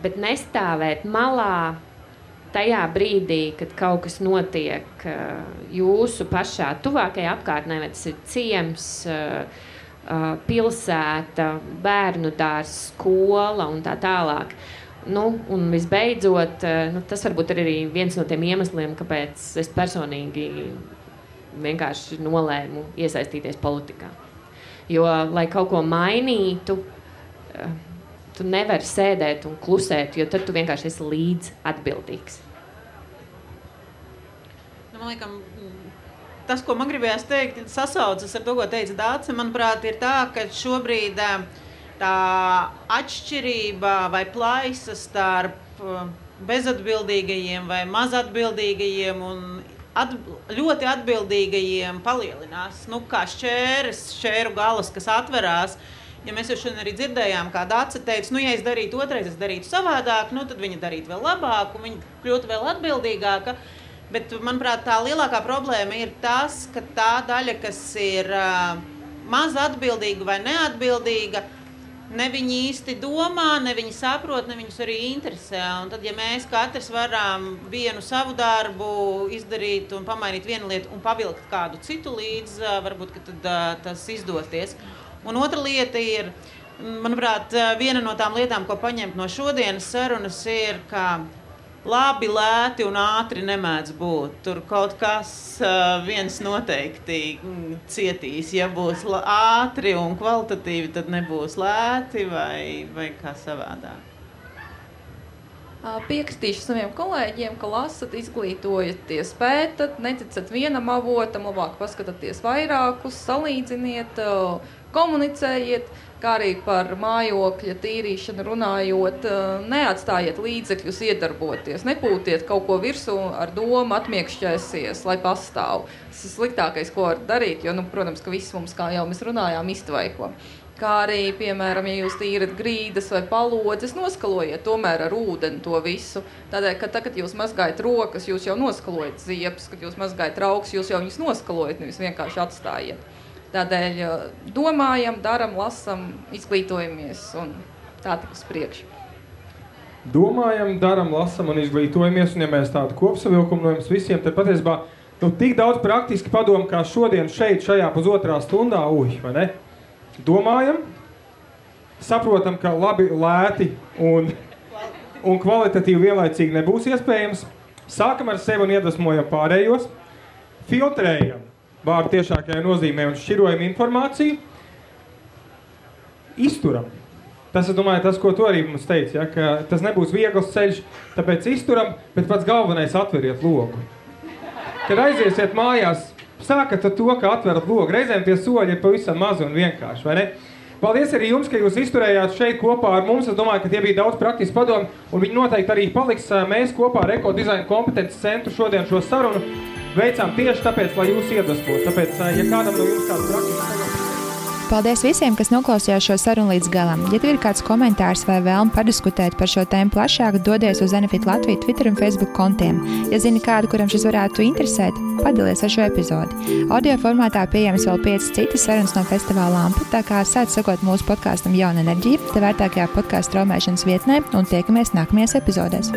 Bet nestāvēt malā tajā brīdī, kad kaut kas notiek jūsu pašā tuvākajā apkārtnē, vai tas ir ciems, pilsēta, bērnu dārs, skola un tā tālāk. Un visbeidzot, tas varbūt ir arī viens no tiem iemesliem, kāpēc es personīgi vienkārši nolēmu iesaistīties politikā. Jo, lai kaut ko mainītu, tu nevari sēdēt un klusēt, jo tad tu vienkārši esi līdz atbildīgs. Man liekas, tas, ko man gribējās teikt, sasaucas ar to, ko teica Dāce, manuprāt, ir tā, ka šobrīd tā atšķirība vai plaisa starp bezatbildīgajiem vai mazatbildīgajiem un ļoti atbildīgajiem palielinās. Kā šķēru galas, kas atverās. Ja mēs jau šodien arī dzirdējām, kā Dāce teica, ja es darītu otrais, es darītu savādāk, tad viņa darītu vēl labāk un viņa kļūtu vēl atbildīgāka. Bet, manuprāt, tā lielākā problēma ir tas, ka tā daļa, kas ir maz atbildīga vai neatbildīga, ne viņi īsti domā, ne viņi saprot, ne viņus arī interesē. Un tad, ja mēs katrs varam vienu savu darbu izdarīt un pamainīt vienu lietu un pavilkt kādu citu līdz, varbūt, ka tad tas izdoties. Un otra lieta ir, manuprāt, viena no tām lietām, ko paņemt no šodienas sarunas, ir, ka labi, lēti un ātri nemēdz būt. Tur kaut kas viens noteikti cietīs. Ja būs ātri un kvalitatīvi, tad nebūs lēti vai kā savādāk. Piekritīšu saviem kolēģiem, ka lasat, izglītojaties, pētat, neticat vienam avotam, labāk paskatāties vairākus, salīdziniet, komunicējiet, kā arī par mājokļa tīrīšanu runājot, neatstājiet līdzekļus iedarboties, nepūtiet kaut ko virsū ar domu atmiekšķēsies, lai pastāv. Tas ir sliktākais, ko var darīt, jo, protams, ka viss mums, kā jau mēs runājām, iztvaiko. Kā arī, piemēram, ja jūs tīrat grīdas vai palodzes, noskalojiet tomēr ar ūdeni to visu. Tādēļ, ka tad, kad jūs mazgājat rokas, jūs jau noskalojat ziepes, kad jūs mazgājat rauks, jūs jau viņus noskalojat, nevis vienkārši atstājiet. Tādēļ domājam, daram, lasam, izglītojamies un tā tik uz priekšu. Domājam, daram, lasam un izglītojamies, un ja mēs tādu kopsavilkumu no jums visiem, tad patiesībā tik daudz praktiski padomu, kā šodien šeit, šajā pusotrā stundā, vai ne? Domājam, saprotam, ka labi, lēti un kvalitatīvi vienlaicīgi nebūs iespējams. Sākam ar sevi un iedvesmojam pārējos. Filtrējam vārdu tiešākajā nozīmē un šķirojam informāciju. Izturam. Tas, es domāju, tas, ko tu arī mums teici, ja, ka tas nebūs viegls ceļš, tāpēc izturam, bet pats galvenais atveriet logu. Kad aiziesiet mājās, sākat ar to, ka atverat logu. Reizēm tie soļi ir pavisam mazi un vienkārši, vai ne? Paldies arī jums, ka jūs izturējāt šeit kopā ar mums. Es domāju, ka tie bija daudz praktiski padomi, un viņi noteikti arī paliks. Mēs kopā ar Ekodizaina kompetences centru šodien šo sarunu veicām tieši tāpēc, lai jūs iedvesmot. Tāpēc, ja kādam no jums kāds praktiski padomi. Paldies visiem, kas noklausījās šo sarunu līdz galam. Ja tev ir kāds komentārs vai vēlme padiskutēt par šo tēmu plašāk, dodies uz Enefit Latviju Twitter un Facebook kontiem. Ja zini kādu, kuram šis varētu interesēt, padalies ar šo epizodi. Audio formātā pieejams vēl 5 citas sarunas no festivāla Lampa, tā kā sāc sekot mūsu podkastam Jauna enerģija, te vērtākajā podkastu straumēšanas vietnē, un tiekamies nākamajās epizodēs.